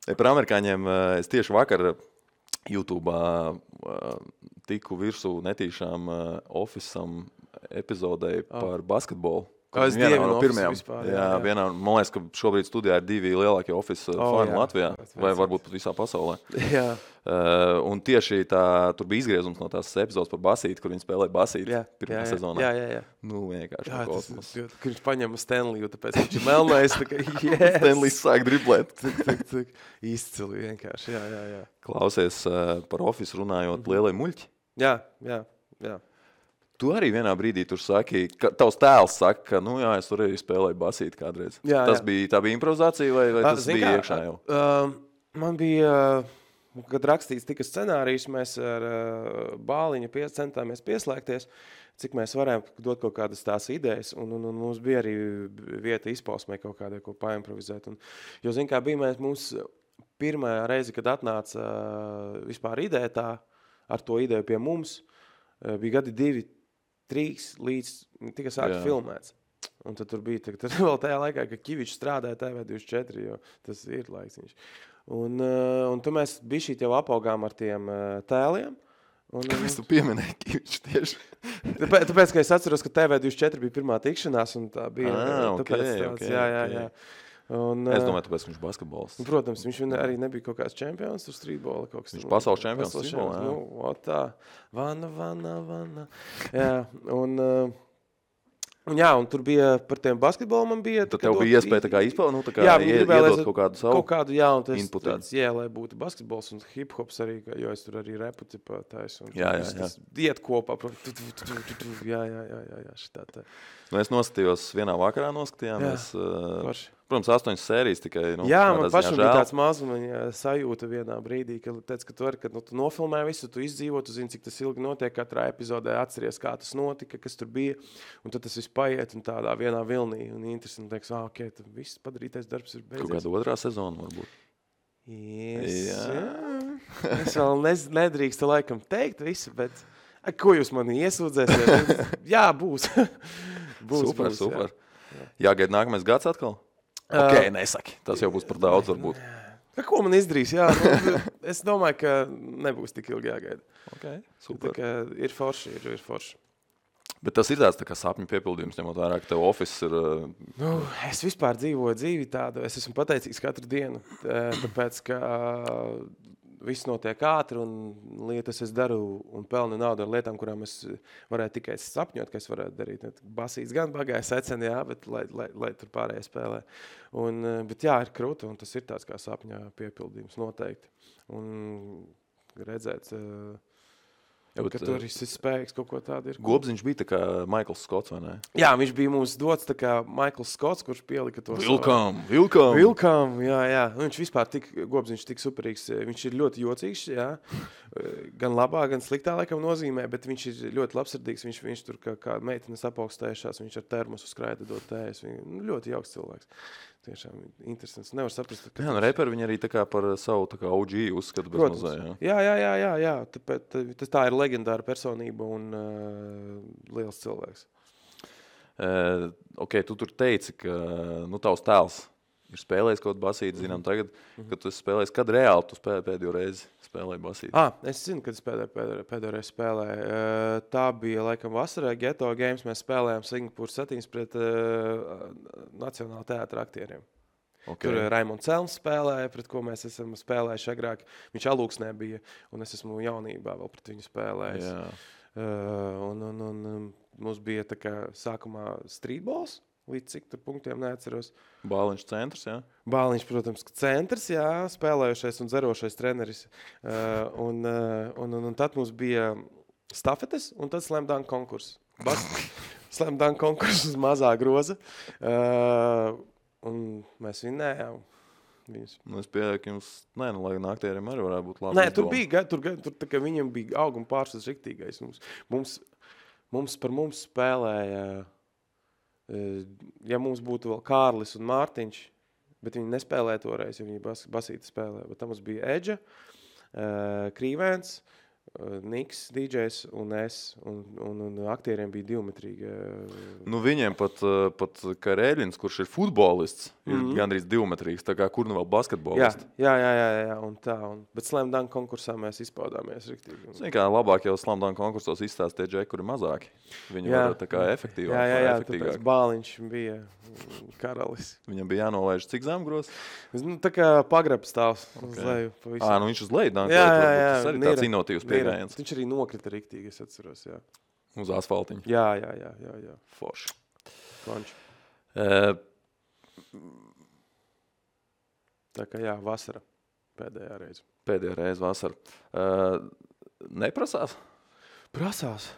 Par amerikāņiem es tieši vakar YouTube'ā tiku virsū netīšām Office'am epizodei par basketbolu. Es dievinu Office vispār. Jā. Vienā, man liekas, ka šobrīd studijā ir 2 lielākie Office fani Latvijā, vai varbūt pat visā pasaulē. Jā. Un tieši tur bija izgriezums no tās epizodes par basīti, kur viņi spēlēja basīti pirmā sezonā. Jā. Nu, vienkārši kosmos. Kur viņš paņem Stanleyu, tāpēc viņš ir melnais. Stanley's sāk driblēt. Izcili vienkārši, jā. Klausies par Office runājot lielie muļķi. Jā. Tu arī vienā brīdī tur saki, ka tavs tēls saka, ka, nu jā, es tur arī spēlēju basīti kādreiz. Tā bija improvizācija vai tas bija iekšā jau? Man bija, kad rakstīts tika scenārijs, mēs ar Bāliņu centāmies pieslēgties, cik mēs varējām dot kaut kādas tās idejas, un mums bija arī vieta izpausmē kaut kādai, ko paimprovizēt. Jo, zin kā, bija mums pirmā reize, kad atnāca vispār ideja tā, ar to ideju pie mums, bija gadi 2-3 līdz tika sākt filmēts. Un tad tur bija tad vēl tajā laikā, ka Kivičs strādāja TV24, jo tas ir laiks viņš. Un tu mēs bišķīt jau apaugām ar tiem tēliem. Kāpēc tu pieminēji Kivičs tieši? Tāpēc, ka es atceros, ka TV24 bija pirmā tikšanās, un tā bija. Okay. Jā. Es domāju, tāpēc viņš basketbols. Protams, viņš arī nebija kaut kāds čempions tur streetbola. Viņš pasaules čempions streetbolā, jā. Nu, tā. Vana. Jā, un tur bija par tiem basketbolu man bija. Tad tev bija iespēja tā kā izpildīt, tā kā iedot kaut kādu savu inputu. Lai būtu basketbols un hip-hops arī, jo es tur arī repu taisu. Jā. Tas iet kopā. Jā, šitā tā. Nu, es noskatījos vienā vakarā noskatījāmies. Protams, 8 sērijas tikai. Jā, man pašam bija tāds mazumiņa sajūta vienā brīdī, ka teica, ka tu nofilmē visu, tu izdzīvo, tu zini, cik tas ilgi notiek, katrā epizodē atceries, kā tas notika, kas tur bija, un tad tas viss paiet un tādā vienā vilnī, un interesanti teiks, ok, tad viss padarītais darbs ir beidzies. Kaut kāda otrā sezona varbūt. Jā. Es vēl nedrīkstu laikam teikt visu, bet ko jūs mani iesūdzēsiet? Jā, būs. Super. Jāgaida nākamais gads atkal? Ok, nesaki. Tas jau būs par daudz varbūt. Ko man izdarīs? Jā, es domāju, ka nebūs tik ilgi jāgaida. Ok, super. Ir forši. Bet tas ir tāds tā kā sapņu piepildījums, ņemot vērā, ka tev office ir... Es vispār dzīvoju dzīvi tādu. Es esmu pateicīgs katru dienu, tāpēc, ka viss notiek ātri un lietas es daru un pelnu naudu ar lietām, kurām es varētu tikai sapņot, ka es varētu darīt. Basīts gan bagāja seceni, jā, bet lai tur pārējie spēlē. Bet jā, ir krūta un tas ir tāds kā sapņā piepildījums noteikti. Un redzēt, ka tur ir spējīgs kaut ko tādu ir. Gobziņš bija tā kā Michaels Scotts, vai ne? Jā, viņš bija mums dots tā kā Michaels Scotts, kurš pielika to Vilkam, jā. Viņš vispār Gobziņš tik superīgs. Viņš ir ļoti jocīgs, jā. Gan labā, gan sliktā laikam nozīmē, bet viņš ir ļoti labsirdīgs. Viņš tur kā meitenes apaugstējušās, viņš ar termosu skraida dot tējas. Ļoti jauks cilvēks. Tiešām interesants. Nevar saprast. Jā, reperi viņi arī tā kā par savu tā kā OG uzskatu bez mazā, jā. Jā. Tāpēc tā ir leģendāra personība un liels cilvēks. Ok, tu tur teici, ka tavs tēls ir spēlējis kaut basīti, zinām tagad, ka tu spēlējis, kad reāli tu spēlēji pēdējo reizi spēlēji basīti? Es zinu, kad es pēdējo reizi spēlēju. Tā bija laikam vasarā Ghetto Games, mēs spēlējām Singapūras Satīns pret Nacionāla teātra aktieriem. Okay. Tur Raimonds Celms spēlēja, pret ko mēs esam spēlējuši agrāk. Viņš Alūksnē bija, un es esmu jaunībā vēl pret viņu spēlējis. Un mums bija tā kā sākumā streetballs, līdz cik tur punktiem neatceros. Bāliņš centrs, jā? Bāliņš, protams, centrs, jā, spēlējušais un zerošais treneris. Un tad mums bija stafetes un tad slam dunk konkurss. Slam dunk konkurss uz mazā groza. Un mēs vinnējām viņus. Es pieļauju, ka jums, lai aktieriem arī varētu būt labi. Nē, tur tā kā viņam bija auguma pārsvars riktīgais. Mums Par mums spēlēja, ja mums būtu vēl Kārlis un Mārtiņš, bet viņi nespēlēja toreiz, jo viņi basīti spēlēja. Bet tam mums bija Edža, Krīvēns, Niks, DJs un es, un aktieriem bija divimetrīgi. Nu, viņiem pat Karēļins, kurš ir futbolists, ir gandrīz divimetrīgs, tā kā kur nu vēl basketbolists. Jā, un tā. Bet Slam Dunk konkursā mēs izpaudāmies riktīgi. Zini, kā labāk jau Slam Dunk konkursos izstāstīja džeki, kuri mazāki. Viņi var tā kā efektīvāk. Jā, tāpēc Bāliņš bija karalis. Viņam bija jānolaiž cik zemgros? Nu, tā kā pagrabs stāvs uz leju. Nu viņš uz leju dankoja. Jā. Tas arī tāds inovatīvs pieejams. Viņš arī nokrita riktīgi, es atceros, jā. Uz asfaltiņa. Jā. Forši. Konči. Tā kā jā, vasara. Pēdējā reize vasara. Neprasās? Prasās.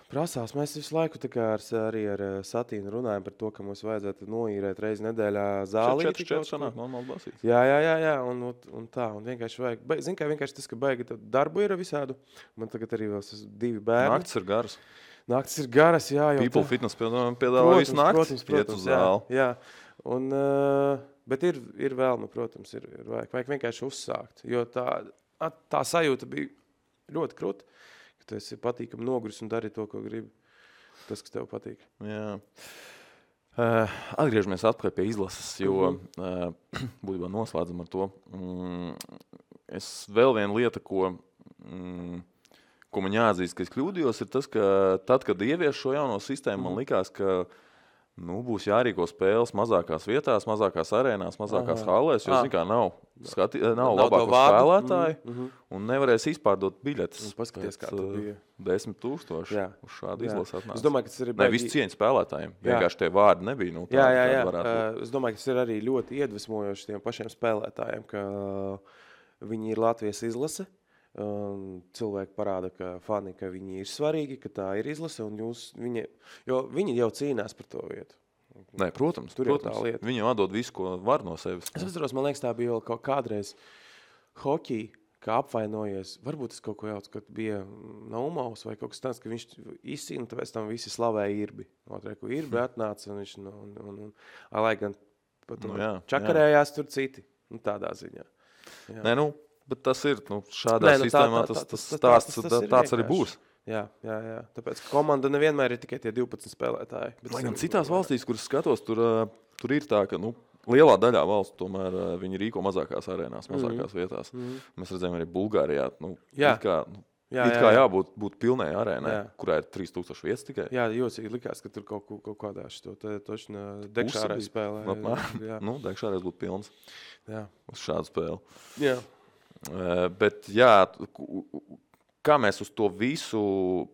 Mēs visu laiku tā kā arī ar Satīnu runājam par to, ka mums vajadzētu noīrēt reizi nedēļā zāli. 4 sanāk normāli basīt. Jā, un tā. Un vienkārši vajag. Zini, kā vienkārši tas, ka baigi darbu ir visādu. Man tagad arī vēl 2 bērni. Naktis ir garas, jā. People Fitness piedāvā visu nakti. Iet uz zāli. Jā. Un, bet ir vēlme, protams, ir vajag vienkārši uzsākt. Jo tā sajūta bija ļoti kruta. Tu esi patīkami noguris un dari to, ko gribi. Tas, kas tev patīk. Jā. Atgriežamies atpakaļ pie izlases, jo būtībā noslēdzam ar to. Vēl viena lieta, ko man jāatzīst, ka es kļūdījos, ir tas, ka tad, kad ievies šo jauno sistēmu, man likās, ka būs jārīko spēles mazākās vietās, mazākās arēnās, mazākās hallēs, jo, zin kā, nav labāko spēlētāju un nevarēs izpārdot biļetes. Paskaties, kā tu bija. 10,000 uz šādu izlasi atnāca. Es domāju, ka tas ir visu cieņu spēlētājiem. Vienkārši tie vārdi nebija. Jā. Es domāju, ka tas ir arī ļoti iedvesmojoši tiem pašiem spēlētājiem, ka viņi ir Latvijas izlase. Cilvēki parāda, ka fani, ka viņi ir svarīgi, ka tā ir izlase, un viņi jau cīnās par to vietu. Nē, protams. Viņi jau atdod visu, ko var no sevis. Es atceros, man liekas, tā bija vēl kaut kādreiz hoķī, kā apvainojies. Varbūt es kaut ko jaucu, kad bija Naumaus vai kaut kas tāds, ka viņš izcīna, tāpēc tam visi slavēja Irbi. Ko Irbi atnāca, un viņš, lai gan pat čakarējās tur citi. Tādā ziņā. Jā. Nē, bet tas ir, šādā sistēmā tas tāds arī būs. Jā. Tāpēc komanda nevienmēr ir tikai tie 12 spēlētāji. Lai gan citās valstīs, kuras skatos, tur ir tā, ka lielā daļā valstu tomēr viņi rīko mazākās arēnās, mazākās vietās. Mēs redzējām arī Bulgārijā. It kā jābūt pilnai arēnai, kurā ir 3000 vietas tikai. Jā, jocīgi likās, ka tur kaut kādā šito točnā Dekšārēs spēlē. Dekšārēs būtu pilns uz šādu spēli. Jā. Bet kā mēs uz to visu,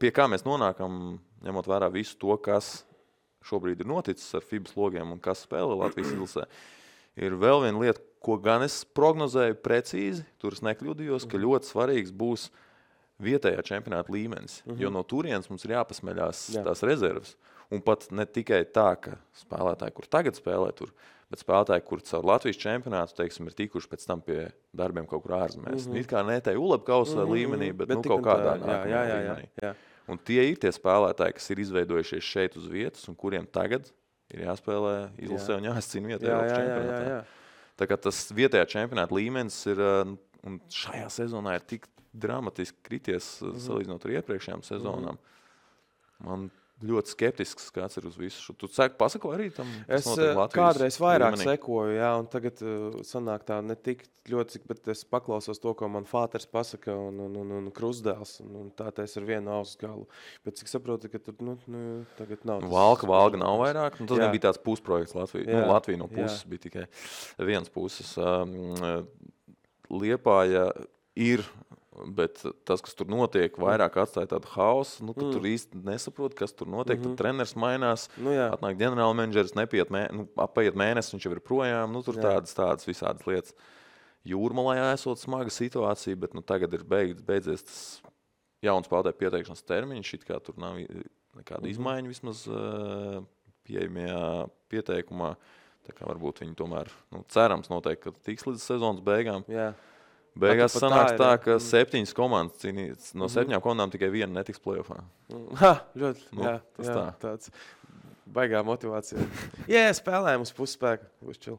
pie kā mēs nonākam, ņemot vērā visu to, kas šobrīd ir noticis ar FIBA logiem un kas spēlē Latvijas izlasē, ir vēl viena lieta, ko gan es prognozēju precīzi, tur es nekļūdījos, ka ļoti svarīgs būs vietējā čempionāta līmenis, jo no turienes mums ir jāpasmeļās tās rezerves. Un pat ne tikai tā, ka spēlētāji, kur tagad spēlē tur, bet spēlētāji, kur caur Latvijas čempionātu, teiksim, ir tikuši pēc tam pie darbiem kaut kur ārzemēs. It kā ne tai ULEB-kausa līmenī, bet kaut kādā līmenī. Un tie ir tie spēlētāji, kas ir izveidojušies šeit uz vietas un kuriem tagad ir jāspēlē izlasē un jāizcīna vietējā čempionātā. Tā kā tas vietējā čempionāta līmenis ir, un šajā sezonā ir tik dramatiski krities salīdzinot ar iepriekšējām sezonām. Man ļoti skeptisks skats ir uz visu. Tu pasako arī tam? Es kādreiz vairāk sekoju, un tagad sanāk tā ne tik ļoti, bet es paklausos to, ko man fāters pasaka un krustdēls, un tā es ar vienu ausu galu. Bet cik saprotu, ka tur tagad nav. Valga nav vairāk, tas bija tāds pusprojekts Latvija. Latvija no puses bija tikai vienas puses. Liepāja ir, bet tas, kas tur notiek, vairāk atstāja tādu hausu, ka tur īsti nesaprot, kas tur notiek. Tad treneris mainās, atnāk ģenerālmenedžeris, apaiet mēnesis, viņš jau ir projām. Tur tādas visādas lietas. Jūrmalā esot smaga situācija, bet tagad ir beidzies tas jauns spēlētāju pieteikšanas termiņš, it kā tur nav nekāda izmaiņa vismaz pieejamajā pieteikumā. Tā kā varbūt viņi tomēr, cerams noteikti, ka tiks līdz sezonas beigām. Beigās sanāks tā, ka 7 komandas cīnīs. No 7 komandām tikai viena netiks play-offā. Ļoti, tas tā. Tāds baigā motivācija. Spēlējam uz pusspēku. Būs čil.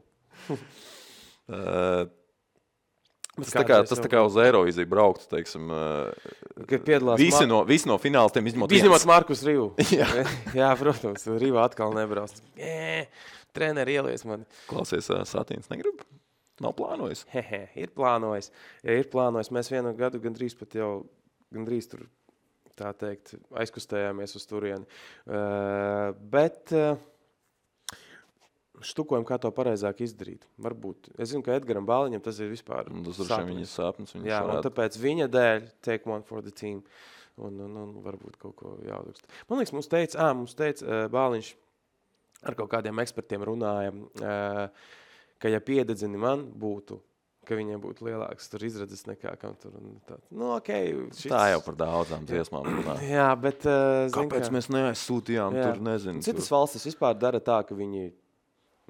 Tas tā kā uz Eirovīziju brauktu, teiksim. Visi no finālistiem izņemot Markus Rivu. Jā, protams, Riva atkal nebrauc. Treneri ielies mani. Klausies, Satīns negrib? Nav plānojis? Ir plānojis. Ir plānojis. Mēs vienu gadu gandrīz tur, tā teikt, aizkustējāmies uz turieni. Bet štukojam, kā to pareizāk izdarīt. Varbūt. Es zinu, ka Edgaram Bāliņam tas ir vispār sapnis. Jā, un tāpēc viņa dēļ take one for the team. Un varbūt kaut ko jāuzrakst. Man liekas, mums teica Bāliņš, ar kaut kādiem ekspertiem runājam, ka ja piededzini man būtu, ka viņiem būtu lielāks tur izredzes nekā kam tur. Tā jau par daudzām dziesmām runā. Jā, bet... Kāpēc mēs neaizsūtījām tur, nezinu. Citas valstis vispār dara tā, ka viņi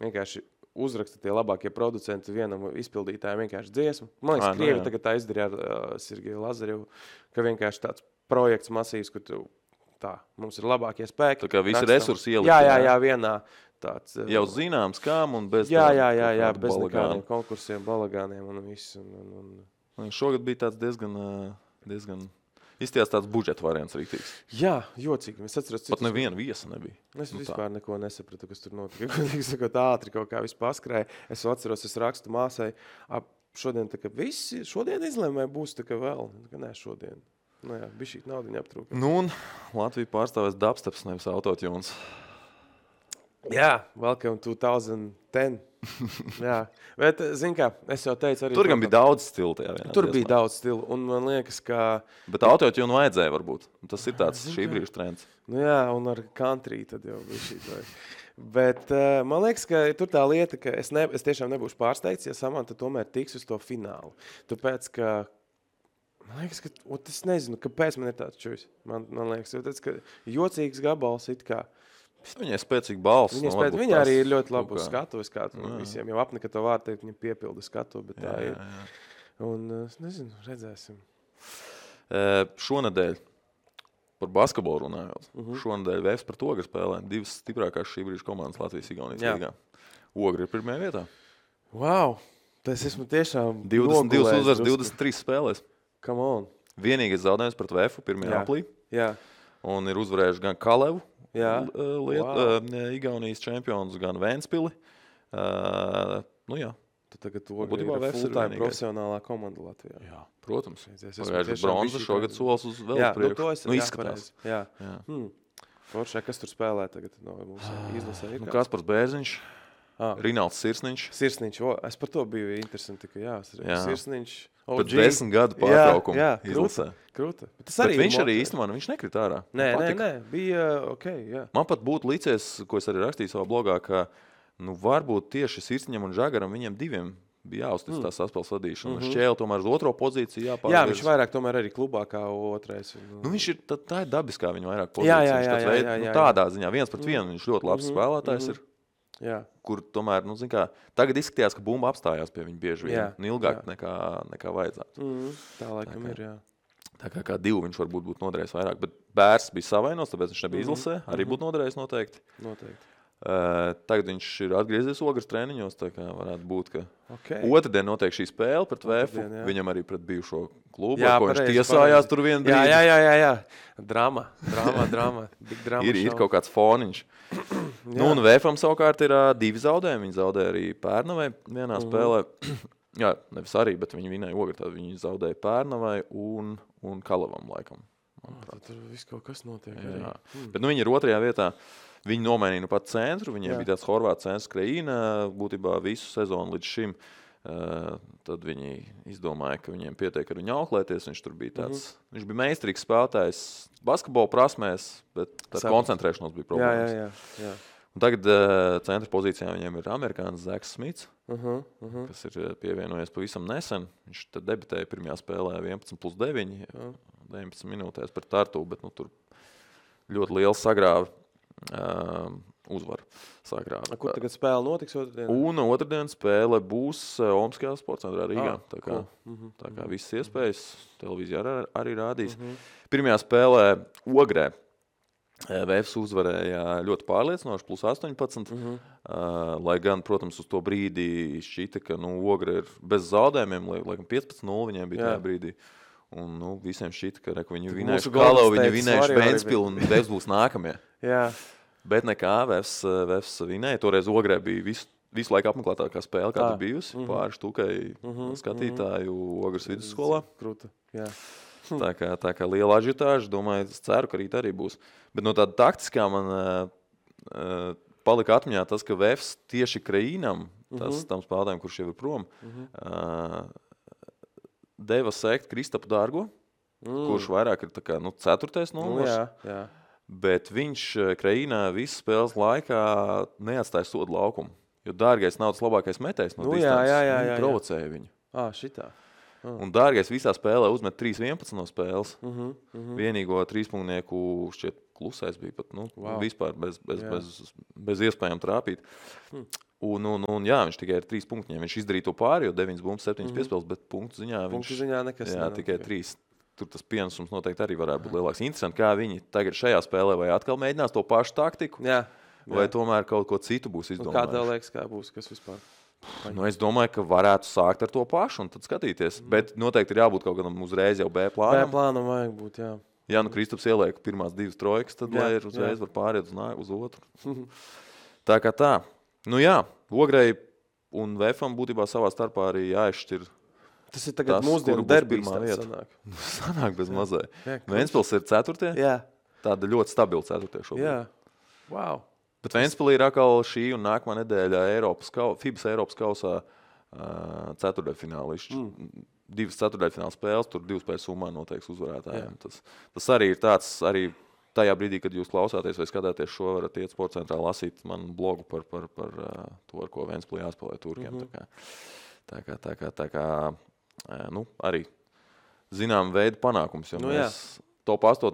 vienkārši uzraksta tie labākie producenti vienam izpildītājiem vienkārši dziesmu. Man liekas, Krievi tagad tā izdarīja ar Sergeju Lazarevu, ka vienkārši tāds projekts masīvs, kur mums ir labākie spēki. Tā kā visi resursi ielikt. Jā, vienā tāds. Jau zināms, kām un bez Jā, bez nekādiem konkursiem, balagāniem un viss. Šogad bija tāds diezgan izties tāds budžeta variants rīktīgs. Jā, jocīgi. Es atceros, pat neviena viesa nebija. Es vispār neko nesapratu, kas tur notika. Sakot, ātri kaut kā viss paskrēja. Es atceros, es rakstu māsai, šodien tā kā visi, šodien izlēmē būs tā kā vēl. Nē, šodien. Bija šī naudiņa aptrūka. Un Latvija pārstāvēs dubsteps, nevis autotunes. Jā, welcome 2010. Jā, bet, zin kā, es jau teicu arī... Tur gan bija daudz stilu tajā vienā. Tur bija daudz stilu, un man liekas, ka... Bet autotune vajadzēja varbūt. Tas ir tāds šī brīža trends. Jā, un ar country tad jau bija šī tā. Bet man liekas, ka tur tā lieta, ka es tiešām nebūšu pārsteigts, ja Samanta tomēr tiks uz to finālu. Tāpēc, ka... Man liekas, ka... Es nezinu, kāpēc man ir tāds čujs. Man liekas, ka jocīgs gabals it kā... Viņai spēcīga balss. Viņa arī ir ļoti labu skatu. Visiem jau apnika to vārdu teikt, viņa piepilda skatu, bet tā ir. Un, nezinu, redzēsim. Šonedēļ, par basketbolu runājot, šonedēļ Vēfs pret Ogri spēlē 2 stiprākās šī brīža komandas Latvijas-Igaunijas līgā. Ogri ir pirmajā vietā. Wow! Tas esmu tiešām 22 uzvaras, 23 spēlēs. Come on! Vienīgais zaudējums pret Vēfu 1. aprīlī. Jā. Un ir uzvarējuši gan Kalevu, Igaunijas čempions, gan Ventspili. Jā. Tu tagad Ogri ir full-time profesionālā komanda Latvijā. Jā, protams. Pagājuši bronza, šogad solis uz vēl priekš. Izskatās. Jā. Foršē, kas tur spēlē tagad? Izlasē ir kāds? Kaspars Bērziņš, Rinalds Sirsniņš. Es par to biju interesanti, ka Sirsniņš. Pēc 10 gadu pārtraukumu izlasē. Krūta. Bet viņš arī īstenībā, viņš nekrit ārā. Nē, bija ok, jā. Man pat būtu licies, ko es arī rakstīju savā blogā, ka varbūt tieši Sirsniņam un Žagaram viņiem diviem bija jāuztic tā saspēles vadīšana. Šķēle tomēr uz otro pozīciju jāpārvirz. Jā, viņš vairāk tomēr arī klubā kā otrais. Viņš ir, tā ir dabiskā viņa vairāk pozīcijas. Jā. Tādā ziņā 1-1 viņš ļoti labs spēlētājs ir. Jā. Kur tomēr, tagad izskatījās, ka bumba apstājās pie viņa bieži vien. Ilgāk nekā vajadzētu. Tā laikam ir, jā. Tā kā 2 viņš varbūt būtu noderējis vairāk, bet Bērs bija savainos, tāpēc viņš nebija izlasē. Arī būtu noderējis noteikti. Tagad viņš ir atgriezies Ogres treniņos, tā kā varētu būt, ka otrdien notiek šī spēle pret Vēfu. Viņam arī pret bijušo klubu, ko viņš tiesājās tur vienu brīdi. Jā. Drama. Big drama. Ir kaut kāds foniņš. Un Vēfam savukārt ir 2 zaudējumi. Viņi zaudēja arī Pērnavai vienā spēlē. Jā, nevis arī, bet viņi vinēja Ogri. Tad viņi zaudēja Pērnavai un Kalavam laikam. Tur viss kaut kas notiek. Bet viņi ir 2. vietā. Viņi nomainīja pat centru. Viņiem bija tāds horvāts centrs Kreīna būtībā visu sezonu līdz šim. Tad viņi izdomāja, ka viņiem pietiek ar viņu auklēties. Viņš tur bija tāds, viņš bija meistarīgs spēlētājs basketbola prasmēs, bet koncentrēšanos bija problēmas. Jā. Un tagad centra pozīcijā viņiem ir amerikānis Zeks Smits, kas ir pievienojies pavisam nesen. Viņš tad debitēja pirmajā spēlē 11+9, 19 minūtēs pret Tartu, bet tur ļoti liels sagrāva uzvaru sagrāva. Kur tagad spēle notiks otrdien? Un otrdien spēle būs Omskajā sporta centrā Rīgā. Tā kā visas iespējas televīzijā arī rādīs. Pirmajā spēlē Ogrē VFS uzvarēja ļoti pārliecinoši, plus 18. Lai gan, protams, uz to brīdī šķita, ka Ogre ir bez zaudējumiem, laikam 15-0 viņiem bija tajā brīdī. Un visiem šķita, ka viņi vinējuši Kalavu, viņi vinējuši Ventspilu un VFS būs nākamie. Jā. Bet nekā, VFS vinēja. Toreiz Ogrē bija visu laiku apmeklētākā spēle, kāda bijusi. Pāri štukai skatītāju Ogres vidusskolā. Krūta, jā. Tā kā liela ažitāža, domāju, es ceru, ka rīt arī būs. Bet no tāda taktiskā man palika atmiņā tas, ka VFS tieši Kraīnam, tam spēlētājiem, kurš jau ir prom, deva sekt Kristapu Dārgo, kurš vairāk ir tā kā, 4. numurs. Jā. Bet viņš Kraīnā visu spēles laikā neatstāja sodu laukumu. Jo Dārgais nav tas labākais metējs no distances. Viņi provocēja viņu. Šitā. Un Dārgais visā spēlē uzmet 3-11 no spēles. Vienīgo trīspunktnieku šķiet klusais bija pat, vispār bez iespējām trāpīt. Un viņš tikai ar 3 punktiem. Viņš izdarīja to pāri, jo 9 bumbas, 7 piespēles, bet punktu ziņā nekas. Jā, tikai 3. Tur tas pienesums noteikti arī varētu būt lielāks. Interesanti, kā viņi tagad šajā spēlē vai atkal mēģinās to pašu taktiku, vai tomēr kaut ko citu būs izdomājuši. Kā tev liekas, kā būs, kas vispār? Es domāju, ka varētu sākt ar to pašu un tad skatīties. Bet noteikti ir jābūt kaut kādam uzreiz jau B plānam. B plānam vajag būt, jā. Ja Kristaps ieliek pirmās 2 trojkas, tad lai ir uzreiz var pāriet uz otru. Tā kā tā. Ogrei un VFam būtībā savā starpā arī jāizšķir. Tas ir tagad mūsdienu derbīs sanāk. Sanāk bez mazai. Ventspils ir 4. Jā. Tāda ļoti stabila 4. šobrīd. Jā. Wow. Bet Ventspilī ir atkal šī un nākamā nedēļa FIBAS Eiropas kausā ceturtdaļfinālišķi. 2 ceturtdaļfināla spēles, tur 2 spēles summā noteiks uzvarētājiem. Tas arī ir tāds, arī tajā brīdī, kad jūs klausāties vai skatāties šo, varat iet sporta centrā lasīt manu blogu par to, ar ko Ventspilī jāspēlē turkiem. Tā kā arī zinām veidu panākums, jo mēs top 8,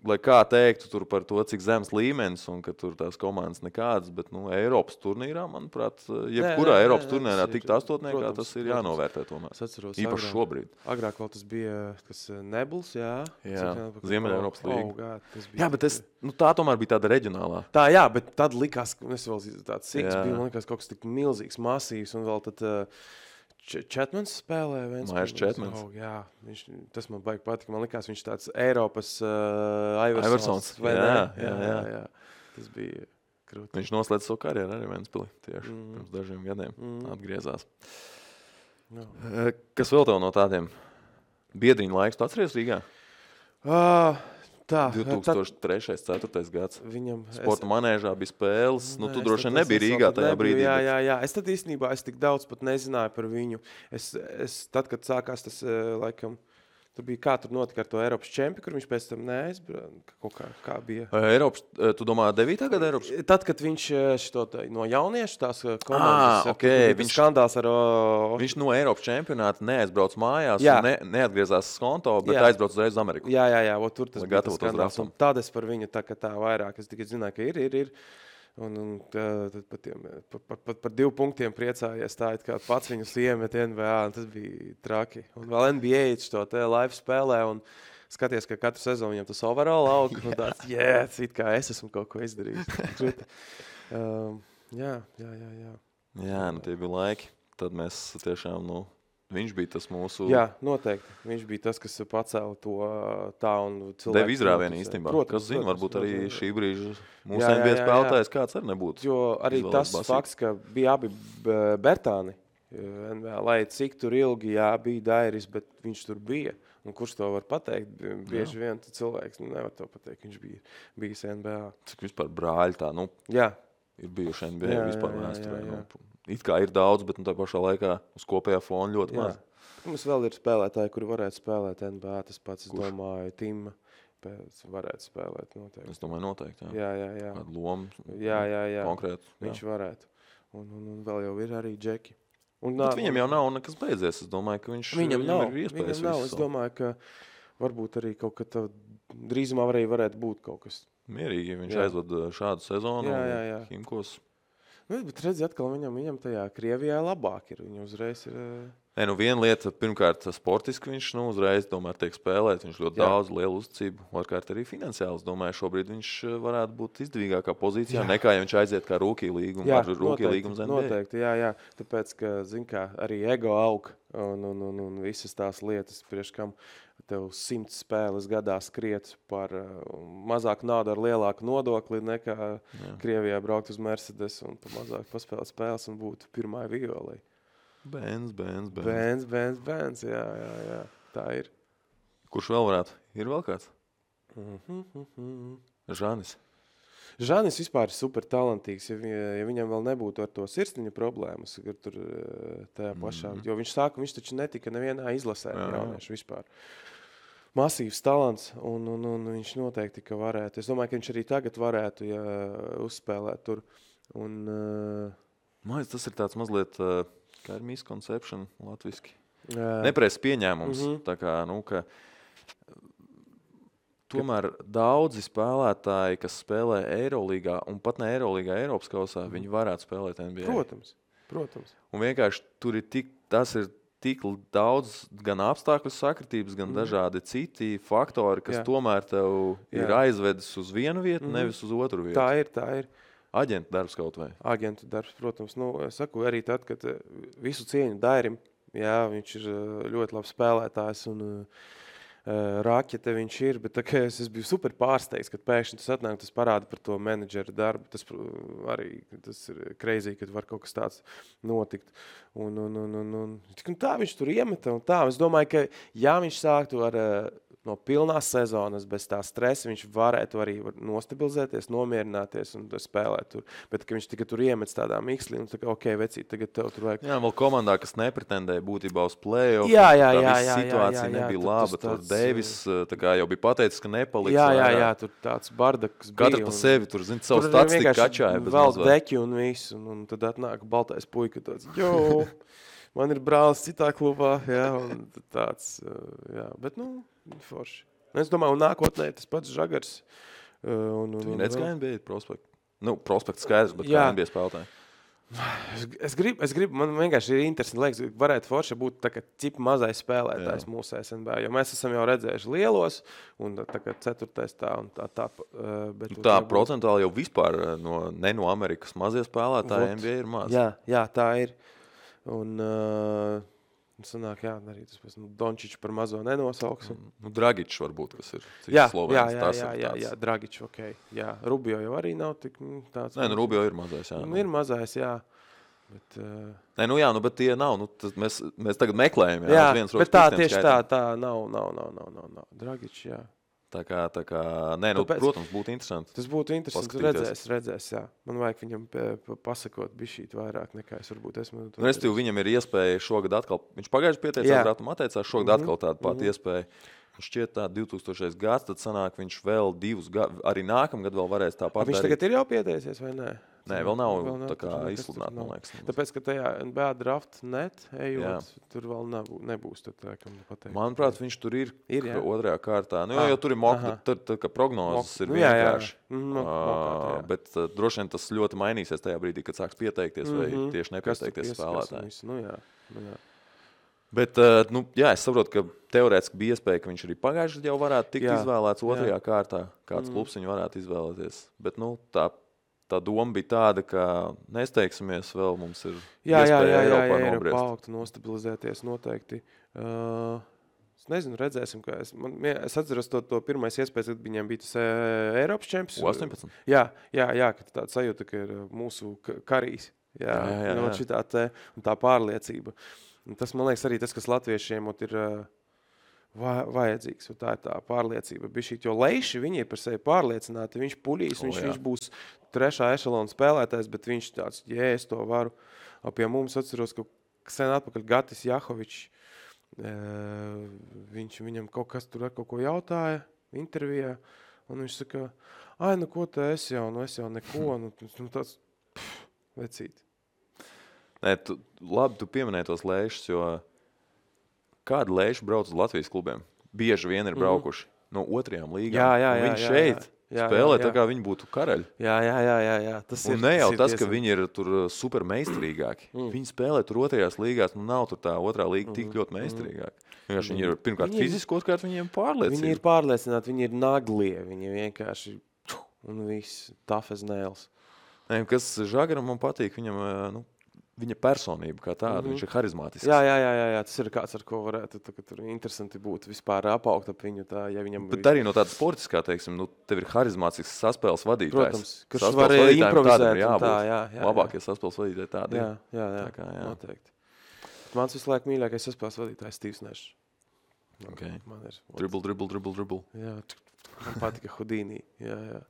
lai kā teiktu tur par to, cik zems līmenis un ka tur tās komandas nekādas, bet Eiropas turnīrā, manuprāt, jebkurā Eiropas turnīrā tikt 8, tas ir jānovērtē tomēr. Īpaši šobrīd. Agrāk vēl tas bija Nebuls, jā. Ziemeļa Eiropas līga. Jā, bet tā tomēr bija tāda reģionālā. Tā, jā, bet tad likās, es vēl tāds siks bija, man likās kaut kas tik milzīgs, masīvs un vēl tad Četmans spēlē. Mairs Četmans. Jā, tas man baigi patika. Man likās, viņš tāds Eiropas Iversons. Jā. Tas bija krūti. Viņš noslēdz savu karjeru arī Ventspilī tieši pirms dažiem gadiem. Atgriezās. Kas vēl tev no tādiem biedriņu laiks? Tu atceries Rīgā? 2003. 4. gads. Sporta manēžā bija spēles. Tu droši vien nebija Rīgā tajā brīdī. Jā. Es tad īstenībā tik daudz pat nezināju par viņu. Tad, kad sākās tas, laikam, tur bija kā tur notika ar to Eiropas čempi, kur viņš pēc tam neaizbrauca. Kaut kā bija. Eiropas, tu domā 9. gada Eiropas? Tad, kad viņš no jauniešu tās komandas, viņš skandāls ar... Viņš no Eiropas čempionāta neaizbrauc mājās un neatgriezās skonto, bet aizbrauc uzreiz uz Ameriku. Jā, tur tas bija tas skandāls. Un tad es par viņu tā vairāk, es tikai zināju, ka ir. Un par 2 punktiem priecājies tā, it kā pats viņus iemet NBA, un tas bija traki. Un vēl NBA to te live spēlē, un skaties, ka katru sezonu viņam tas overall aug, un tāds, it kā es esmu kaut ko izdarījis. Jā. Jā, tie bija laiki. Tad mēs tiešām, viņš bija tas mūsu... Jā, noteikti. Viņš bija tas, kas pacēla to tā un cilvēku... Deva izrāvienu īstenībā. Kas zina, varbūt arī šī brīža mūsu NBA spēlētājs kāds arī nebūtu. Jo arī tas fakts, ka bija abi Bertāni, lai cik tur ilgi bija Dairis, bet viņš tur bija. Un kurš to var pateikt? Bieži vien cilvēks nevar to pateikt, viņš bija bijis NBA. Cik vispār brāļi tā, ir bijuši NBA vispār vēsturē. It kā ir daudz, bet tā pašā laikā uz kopējā fona ļoti maz. Mums vēl ir spēlētāji, kuri varētu spēlēt NBA. Tas pats, es domāju, Tima varētu spēlēt noteikti. Es domāju, noteikti, jā. Kādu lomu konkrētu. Viņš varētu. Un vēl jau ir arī Džeki. Bet viņam jau nav nekas beidzies. Es domāju, ka viņam ir iespējas. Es domāju, ka varbūt arī kaut kad drīzumā varētu būt kaut kas. Mierīgi, ja viņš aizved šādu sezonu. Jā. Himkos. Bet redzi, atkal viņam tajā Krievijā labāk ir. Viņa uzreiz ir... Viena lieta, pirmkārt, sportiski viņš uzreiz tiek spēlēt. Viņš ļoti daudz lielu uzticību. Otrkārt, arī finansiāli. Es domāju, šobrīd viņš varētu būt izdevīgākā pozīcijā, nekā ja viņš aiziet kā rookie līgumu. Jā, noteikti, jā. Tāpēc, ka, zin kā, arī ego aug un visas tās lietas, priekš kam tev 100 spēles gadā skriet par mazāku naudu ar lielāku nodokli nekā Krievijā braukt uz Mercedes un pa mazāk paspēlēt spēles un būt pirmā violei. Bēns. Jā. Tā ir. Kurš vēl varētu? Ir vēl kāds? Žanis vispār ir super talantīgs, ja viņam vēl nebūtu ar to sirsniņu problēmas, tur tajā pašā, jo viņš taču netika nevienā izlasē jauniešu vispār. Masīvs talants, un viņš noteikti, ka varētu. Es domāju, ka viņš arī tagad varētu, ja uzspēlēt tur. Tas ir tāds mazliet, kā ir misconception latviski. Nepareizs pieņēmums. Tā kā, ka tomēr daudzi spēlētāji, kas spēlē Eirolīgā, un pat ne Eirolīgā, Eiropas kausā, viņi varētu spēlēt NBA. Protams. Un vienkārši tur ir tas ir tik daudz gan apstākļu sakritības, gan dažādi citi faktori, kas tomēr tev ir aizvedis uz vienu vietu, nevis uz otru vietu. Tā ir. Aģenta darbs kaut vai? Aģenta darbs, protams. Es saku arī tad, kad visu cieņu Dairim, viņš ir ļoti labs spēlētājs un raķete viņš ir, bet es biju super pārsteigts, kad pēkšņi tas atnāk, tas parāda par to menedžera darbu. Tas ir crazy, kad var kaut kas tāds notikt. Un tā viņš tur iemeta un tā. Es domāju, ka ja viņš sāktu ar no pilnās sezonas bez tā stresa, viņš varētu arī nostabilizēties, nomierināties un spēlēt tur. Bet, ka viņš tikai tur iemets tādā mikslī un tā kā, vecīt, tagad tev tur vajag. Jā, vēl komandā, kas nepretendēja būtībā uz play-off. Jā, situācija nebija laba. Tur Deivis jau bija pateicis, ka nepaliks. Jā, tur tāds bardaks bija. Katrs pa sevi tur, savu statistiku kačāja. Vēl deķi un visu, un tad atnāk baltais puika tāds, man ir brālis citā klubā, un tāds, bet, forši. Es domāju, un nākotnē tas pats Žagars. Tu redz, kā NBA prospekts? Prospekts skaidrs, bet kā NBA spēlētāji? Es gribu, man vienkārši ir interesanti, liekas, varētu forši būt tā kā cip mazais spēlētājs mūsu SNB, jo mēs esam jau redzējuši lielos, un tā kā ceturtais tā un tā. Bet tā procentuāli jau vispār ne no Amerikas mazie spēlētāji NBA ir maz. Jā, tā ir. Un sanāk, arī tas pēc Dončiču par mazo nenosauks. Dragičs varbūt, kas ir Slovēns. Jā, Dragičs, jā. Rubio jau arī nav tik tāds. Rubio ir mazais, jā. Ir mazais, jā. Bet, bet tie nav. Mēs tagad meklējam. Jā, bet tā tieši tā nav. Dragičs, jā. Tā kā protams, būtu interesanti. Tas būtu interesanti, redzēs, jā. Man vajag viņam pasakot bišķīt vairāk nekā es varbūt esmu. Restīvi, viņam ir iespēja šogad atkal, viņš pagājuši pieteicās rātumu atteicās, šogad atkal tādu pati iespēju. Šķiet tā 2000. gads, tad sanāk viņš vēl 2 gadu, arī nākamgad vēl varēs tāpat darīt. Viņš tagad ir jau pieteicies, vai nē? Nē, vēl nav tā kā izsludināt, man liekas. Tāpēc, ka tajā NBA draft net ejot, tur vēl nebūs. Manuprāt, viņš tur ir otrajā kārtā. Jo tur ir ka prognozes ir vienkārši. Bet droši vien tas ļoti mainīsies tajā brīdī, kad sāks pieteikties vai tieši nepieteikties spēlētāji. Bet, es saprotu, ka teorētiski bija iespēja, ka viņš arī pagājuši jau varētu tikt izvēlēts otrajā kārtā. Kāds klubs viņu varētu izvēlēties. Bet, tā doma bija tāda, ka nesteigsimies vēl, mums ir iespēja Eiropā nobriest. Paaugt, nostabilizēties noteikti. Es nezinu, redzēsim, kā es atceros to pirmais iespējas, kad viņiem bija tas Eiropas čempions. 18? Jā, ka tāda sajūta, ka ir mūsu karīs. Jā. Un tā pārliecība. Un tas, man liekas, arī tas, kas latviešiem ir vajadzīgs. Tā ir tā pārliecība. Jo Leiši, viņi ir par sevi pārliecināti. Viņš puļīs, viņš būs 3. ešalona spēlētājs, bet viņš tāds, es to varu. Pie mums atceros, ka sen atpakaļ Gatis Jahovičs, viņam kaut kas tur ar kaut ko jautāja intervijā, un viņš saka, ko te es jau neko, tāds vecīt. Nē, labi, tu pieminēji tos Leišus, jo kādi Leiši brauc uz Latvijas klubiem? Bieži vien ir braukuši no otrajām līgām. Jā. Viņi šeit Spēlē tā kā viņi būtu karaļi. Jā. Un ne jau tas, ka viņi ir tur super meistarīgāki. Viņi spēlē tur otrajās līgās, nav tur tā otrā līga tik ļoti meistarīgāki. Vienkārši viņi ir pirmkārt fiziski, otrkārt viņiem pārliecināti. Viņi ir pārliecināti, viņi ir naglie, viņi vienkārši un viss tough as nails. Kas Žagaram man patīk, viņam, viņa personība kā tāda, viņš ir harizmātisks. Jā, tas ir kāds, ar ko varētu tur interesanti būt vispār apaugt ap viņu. Tā, ja viņam Bet arī no tāda sportiskā, teiksim, tev ir harizmātisks saspēles vadītājs. Protams, kurš var improvizēt. Jā. Labākie saspēles vadītāji tādi. Jā, noteikti. Mans visu laiku mīļākais saspēles vadītājs Steve's Nash. Okay. Dribble. Jā, man patika Houdini. Jā.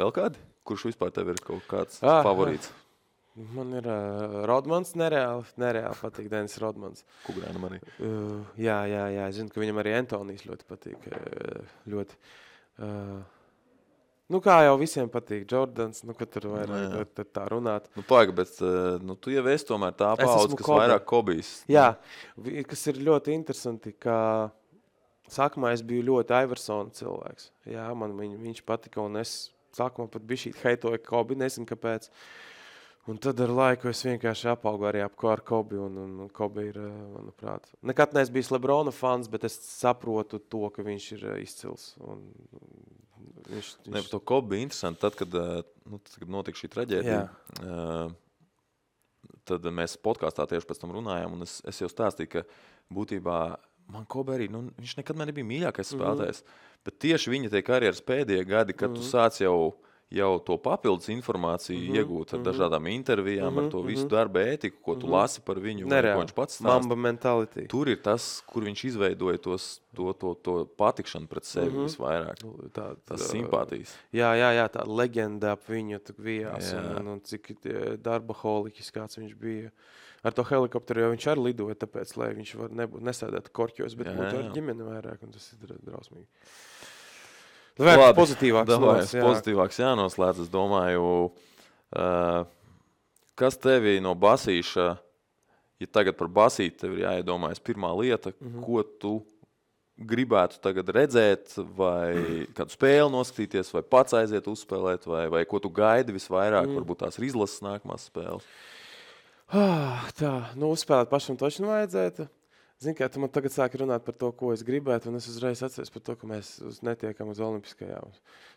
Vēl kādi? Kurš vispār tev ir kaut kāds favorīts? Man ir Rodmans, nereāli patīk Denis Rodmans. Kugrānam arī. Jā, es zinu, ka viņam arī Antonijs ļoti patīk. Ļoti. Kā jau visiem patīk Jordans, kad tur vairāk tā runāt. Paiga, bet tu jau esi tomēr tā paudze, kas vairāk Kobijs. Jā, kas ir ļoti interesanti, ka sākumā es biju ļoti Iversona cilvēks. Jā, man viņš patika, un es sākumā pat bišķīt heitoju Kobi, nezinu kāpēc. Un tad ar laiku es vienkārši apaugu arī ar Kobi, un Kobi ir, manuprāt, nekad neesmu bijis Lebrona fans, bet es saprotu to, ka viņš ir izcils. Par to Kobi bija interesanti, tad, kad notika šī traģēdija, tad mēs podkāstā tieši pēc tam runājām, un es jau stāstīju, ka būtībā man Kobi arī, viņš nekad man nebija mīļākais spēlētājs, bet tieši viņa tie karjeras pēdējie gadi, kad tu sāc jau to papildus informāciju iegūt ar dažādām intervijām, ar to visu darba ētiku, ko tu lasi par viņu, ko viņš pats stāst. Mamba mentality. Tur ir tas, kur viņš izveidoja to patikšanu pret sevi visvairāk. Tas simpātijas. Jā, tā leģenda ap viņu vijās, un cik darbaholiķis kāds viņš bija. Ar to helikopteru jau viņš arī lidoja, tāpēc, lai viņš nesēdētu korķos, bet būtu ar ģimeni vairāk, un tas ir drausmīgi. Pozitīvāks jānoslēdz, es domāju, kas tevi no basīša, ja tagad par basīti tev ir jāiedomājas pirmā lieta, ko tu gribētu tagad redzēt, vai kādu spēli noskatīties, vai pats aiziet uzspēlēt, vai ko tu gaidi visvairāk, varbūt tās ir izlases nākamās spēles? Uzspēlēt pašam toši vajadzētu. Zini, kā tu man tagad sāki runāt par to, ko es gribētu, un es uzreiz atceros par to, ka mēs netiekam uz olimpiskajām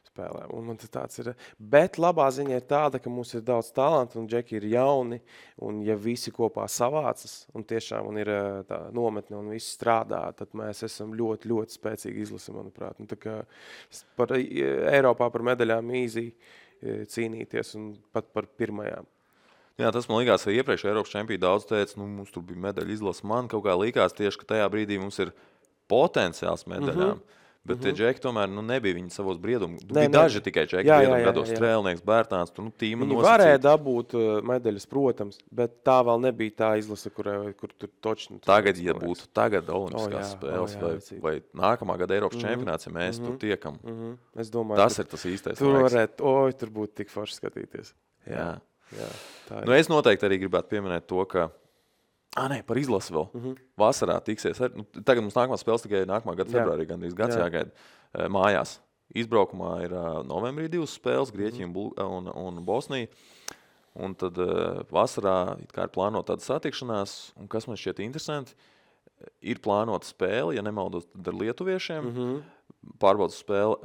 spēlēm. Un man tas tāds ir. Bet labā ziņa ir tāda, ka mums ir daudz talantu, un džeki ir jauni, un ja visi kopā savācas, un tiešām un ir tā nometne, un visi strādā, tad mēs esam ļoti, ļoti spēcīgi izlasi, manuprāt. Un tā kā Eiropā par medaļām īzī cīnīties, un pat par pirmajām. Jā, tas man likās, ka iepriekš Eiropas čempionā daudz teica, mums tur bija medaļa izlase. Man kaut kā likās tieši, ka tajā brīdī mums ir potenciāls medaļām. Bet tie džeki tomēr nebija viņi savos briedumu. Bija daži tikai džeki briedumu gados, Strēlnieks, Bērtāns, tīma nosacīt. Viņi varēja dabūt medaļas, protams, bet tā vēl nebija tā izlase, kur tur točni. Tagad, ja būtu tagad olimpiskās spēles vai nākamā gada Eiropas čempionāts, ja mēs tur tiekam, es domāju, tas ir tas īstais laiks. Tur būtu tik forši skatīties. Jā, es noteikti arī gribētu pieminēt to, ka par izlasi vēl. Vasarā tiksies. Tagad mums nākamā spēles tikai nākamā gada februārī, gandrīz gads jāgaida mājās. Izbraukumā ir novembrī 2 spēles, Grieķija un Bosnija. Un tad vasarā ir plānota tāda satikšanās, un kas man šķiet interesanti, ir plānota spēle, ja nemaldos, tad ar lietuviešiem, pārbaudas spēle.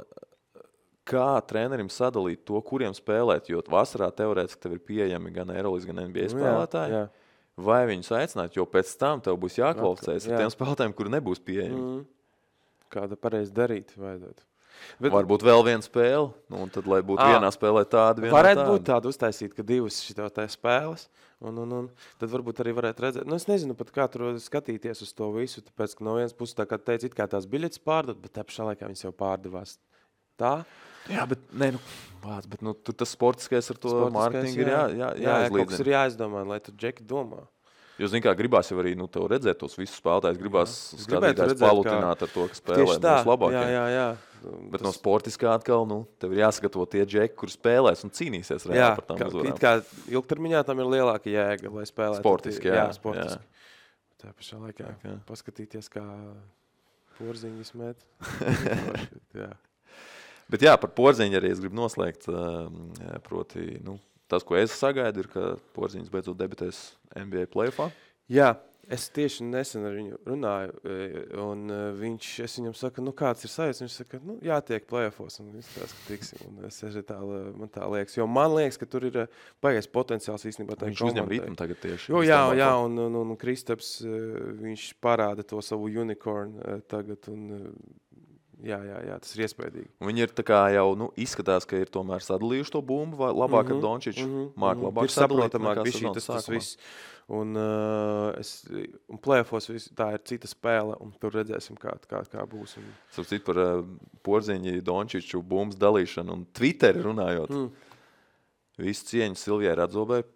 Kā trenerim sadalīt to, kuriem spēlēt, jo vasarā teorētiski tev ir pieejami gan Eirolandes, gan NBA spēlētāji, vai viņus aicināt, jo pēc tam tev būs jākvalificējas ar tiem spēlētājiem, kuri nebūs pieejami. Kāda pareizi darīt vajadzētu. Varbūt vēl viena spēle, un tad, lai būtu vienā spēlē tāda, vienā varētu būt tāda uztaisīt, ka 2 šitā spēles, un tad varbūt arī varētu redzēt. Es nezinu pat, kā tur skatīties uz to visu, tāpēc, ka no vienas puses, tā kā teica, it kā tās biļetes pārdot, bet tā pašā laikā viņas jau pārdevās. Tā? Jā, bet tur tas sportiskais ar to mārketingu ir jāizlīdzina. Kaut kas ir jāizdomā, lai tu džeki domā. Jo, zini kā, gribās jau arī tev redzēt tos visus spēlētājus, gribās skatītājs palutināt ar to, ka spēlē mūsu labākie. Jā. Bet no sportiskā atkal, tev ir jāsagatavo tie džeki, kur spēlēs un cīnīsies reāli par tām uzvarām. Kā ilgtermiņā tam ir lielāka jēga, lai spēlētu. Sportiski, jā. Tā pašā laikā paskatīties, kā porziņas met. Jā. Bet jā, par Porziņu arī es gribu noslēgt. Proti, tas, ko es sagaidu, ir, ka Porziņš beidzot debitēs NBA playoffā. Jā, es tieši nesen ar viņu runāju, un es viņam saku, kāds ir sajūts? Viņš saka, jātiek playoffos, un viss tās, ka tiksim. Un es man tā liekas, jo man liekas, ka tur ir baigais potenciāls īstenībā. Viņš uzņem ritmu tagad tieši. Jā, un Kristaps, viņš parāda to savu unicorn tagad, un jā, tas ir iespējīgi. Viņi ir tā kā jau izskatās, ka ir tomēr sadalījuši to bumbu labāk ar Dončiču. Māk labāk sadalīt, bija tas viss. Un playoffos tā ir cita spēle, un tur redzēsim, kā būs. Sapcīt par Porziņu, Dončiču bumbas dalīšanu un Twitteri runājot. Visu cieņu Silvijai Radzobei.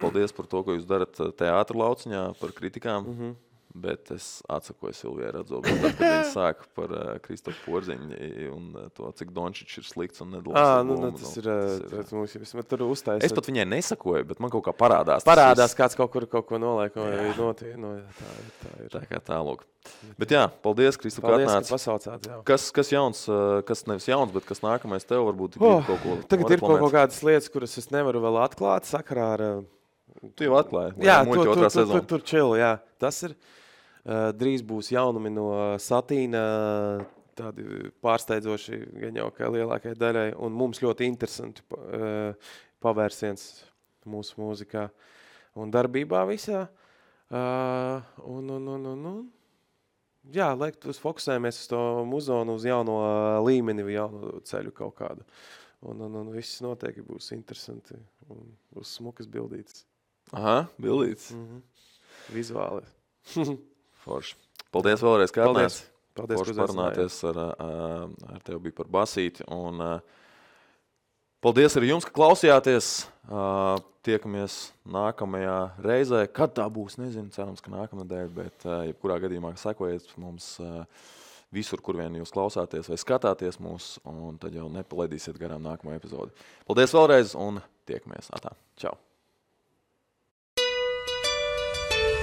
Paldies par to, ko jūs darat teātra lauciņā, par kritikām. Bet es atsakoju Silvijai Radzobei, tad, kad viņi sāka par Kristofu Porziņu un to, cik Dončičs ir slikts un nedalās. Tas ir mums tur uztaisa. Es pat viņai nesakoju, bet man kaut kā parādās. Kāds kaut ko nolaik, vai notiek. Tā ir. Tā kā tālūk. Bet jā, paldies, Kristof, ka atnāc. Ka pasaucāt, jā. Kas jauns, kas nevis jauns, bet kas nākamais tev varbūt ir kaut ko tagad ir kaut kādas lietas, kuras es nevaru vēl atklāt sakarā ar... Tu jau atklāji. Jā, tur chill, jā. Tas ir... Drīz būs jaunumi no Satīna, tādi pārsteidzoši gan jau kā lielākai daļai, un mums ļoti interesanti pavērsiens mūsu mūzikā un darbībā visā. Jā, uz fokusējamies uz to muzonu, uz jauno līmeni, jauno ceļu kaut kādu. Un viss noteikti būs interesanti un būs smukas bildītas. Aha, bildītas. Vizuāli. Forši. Paldies vēlreiz, ka atnāc. Paldies, Forši parunāties ar tevi bija par basīti. Un paldies arī jums, ka klausījāties. Tiekamies nākamajā reizē. Kad tā būs, nezinu, cerams, ka nākamnedēļ, bet jebkurā gadījumā sekojiet mums visur, kur vien jūs klausāties vai skatāties mūs, un tad jau nepalaidīsiet garām nākamo epizodi. Paldies vēlreiz un tiekamies. Atā. Čau.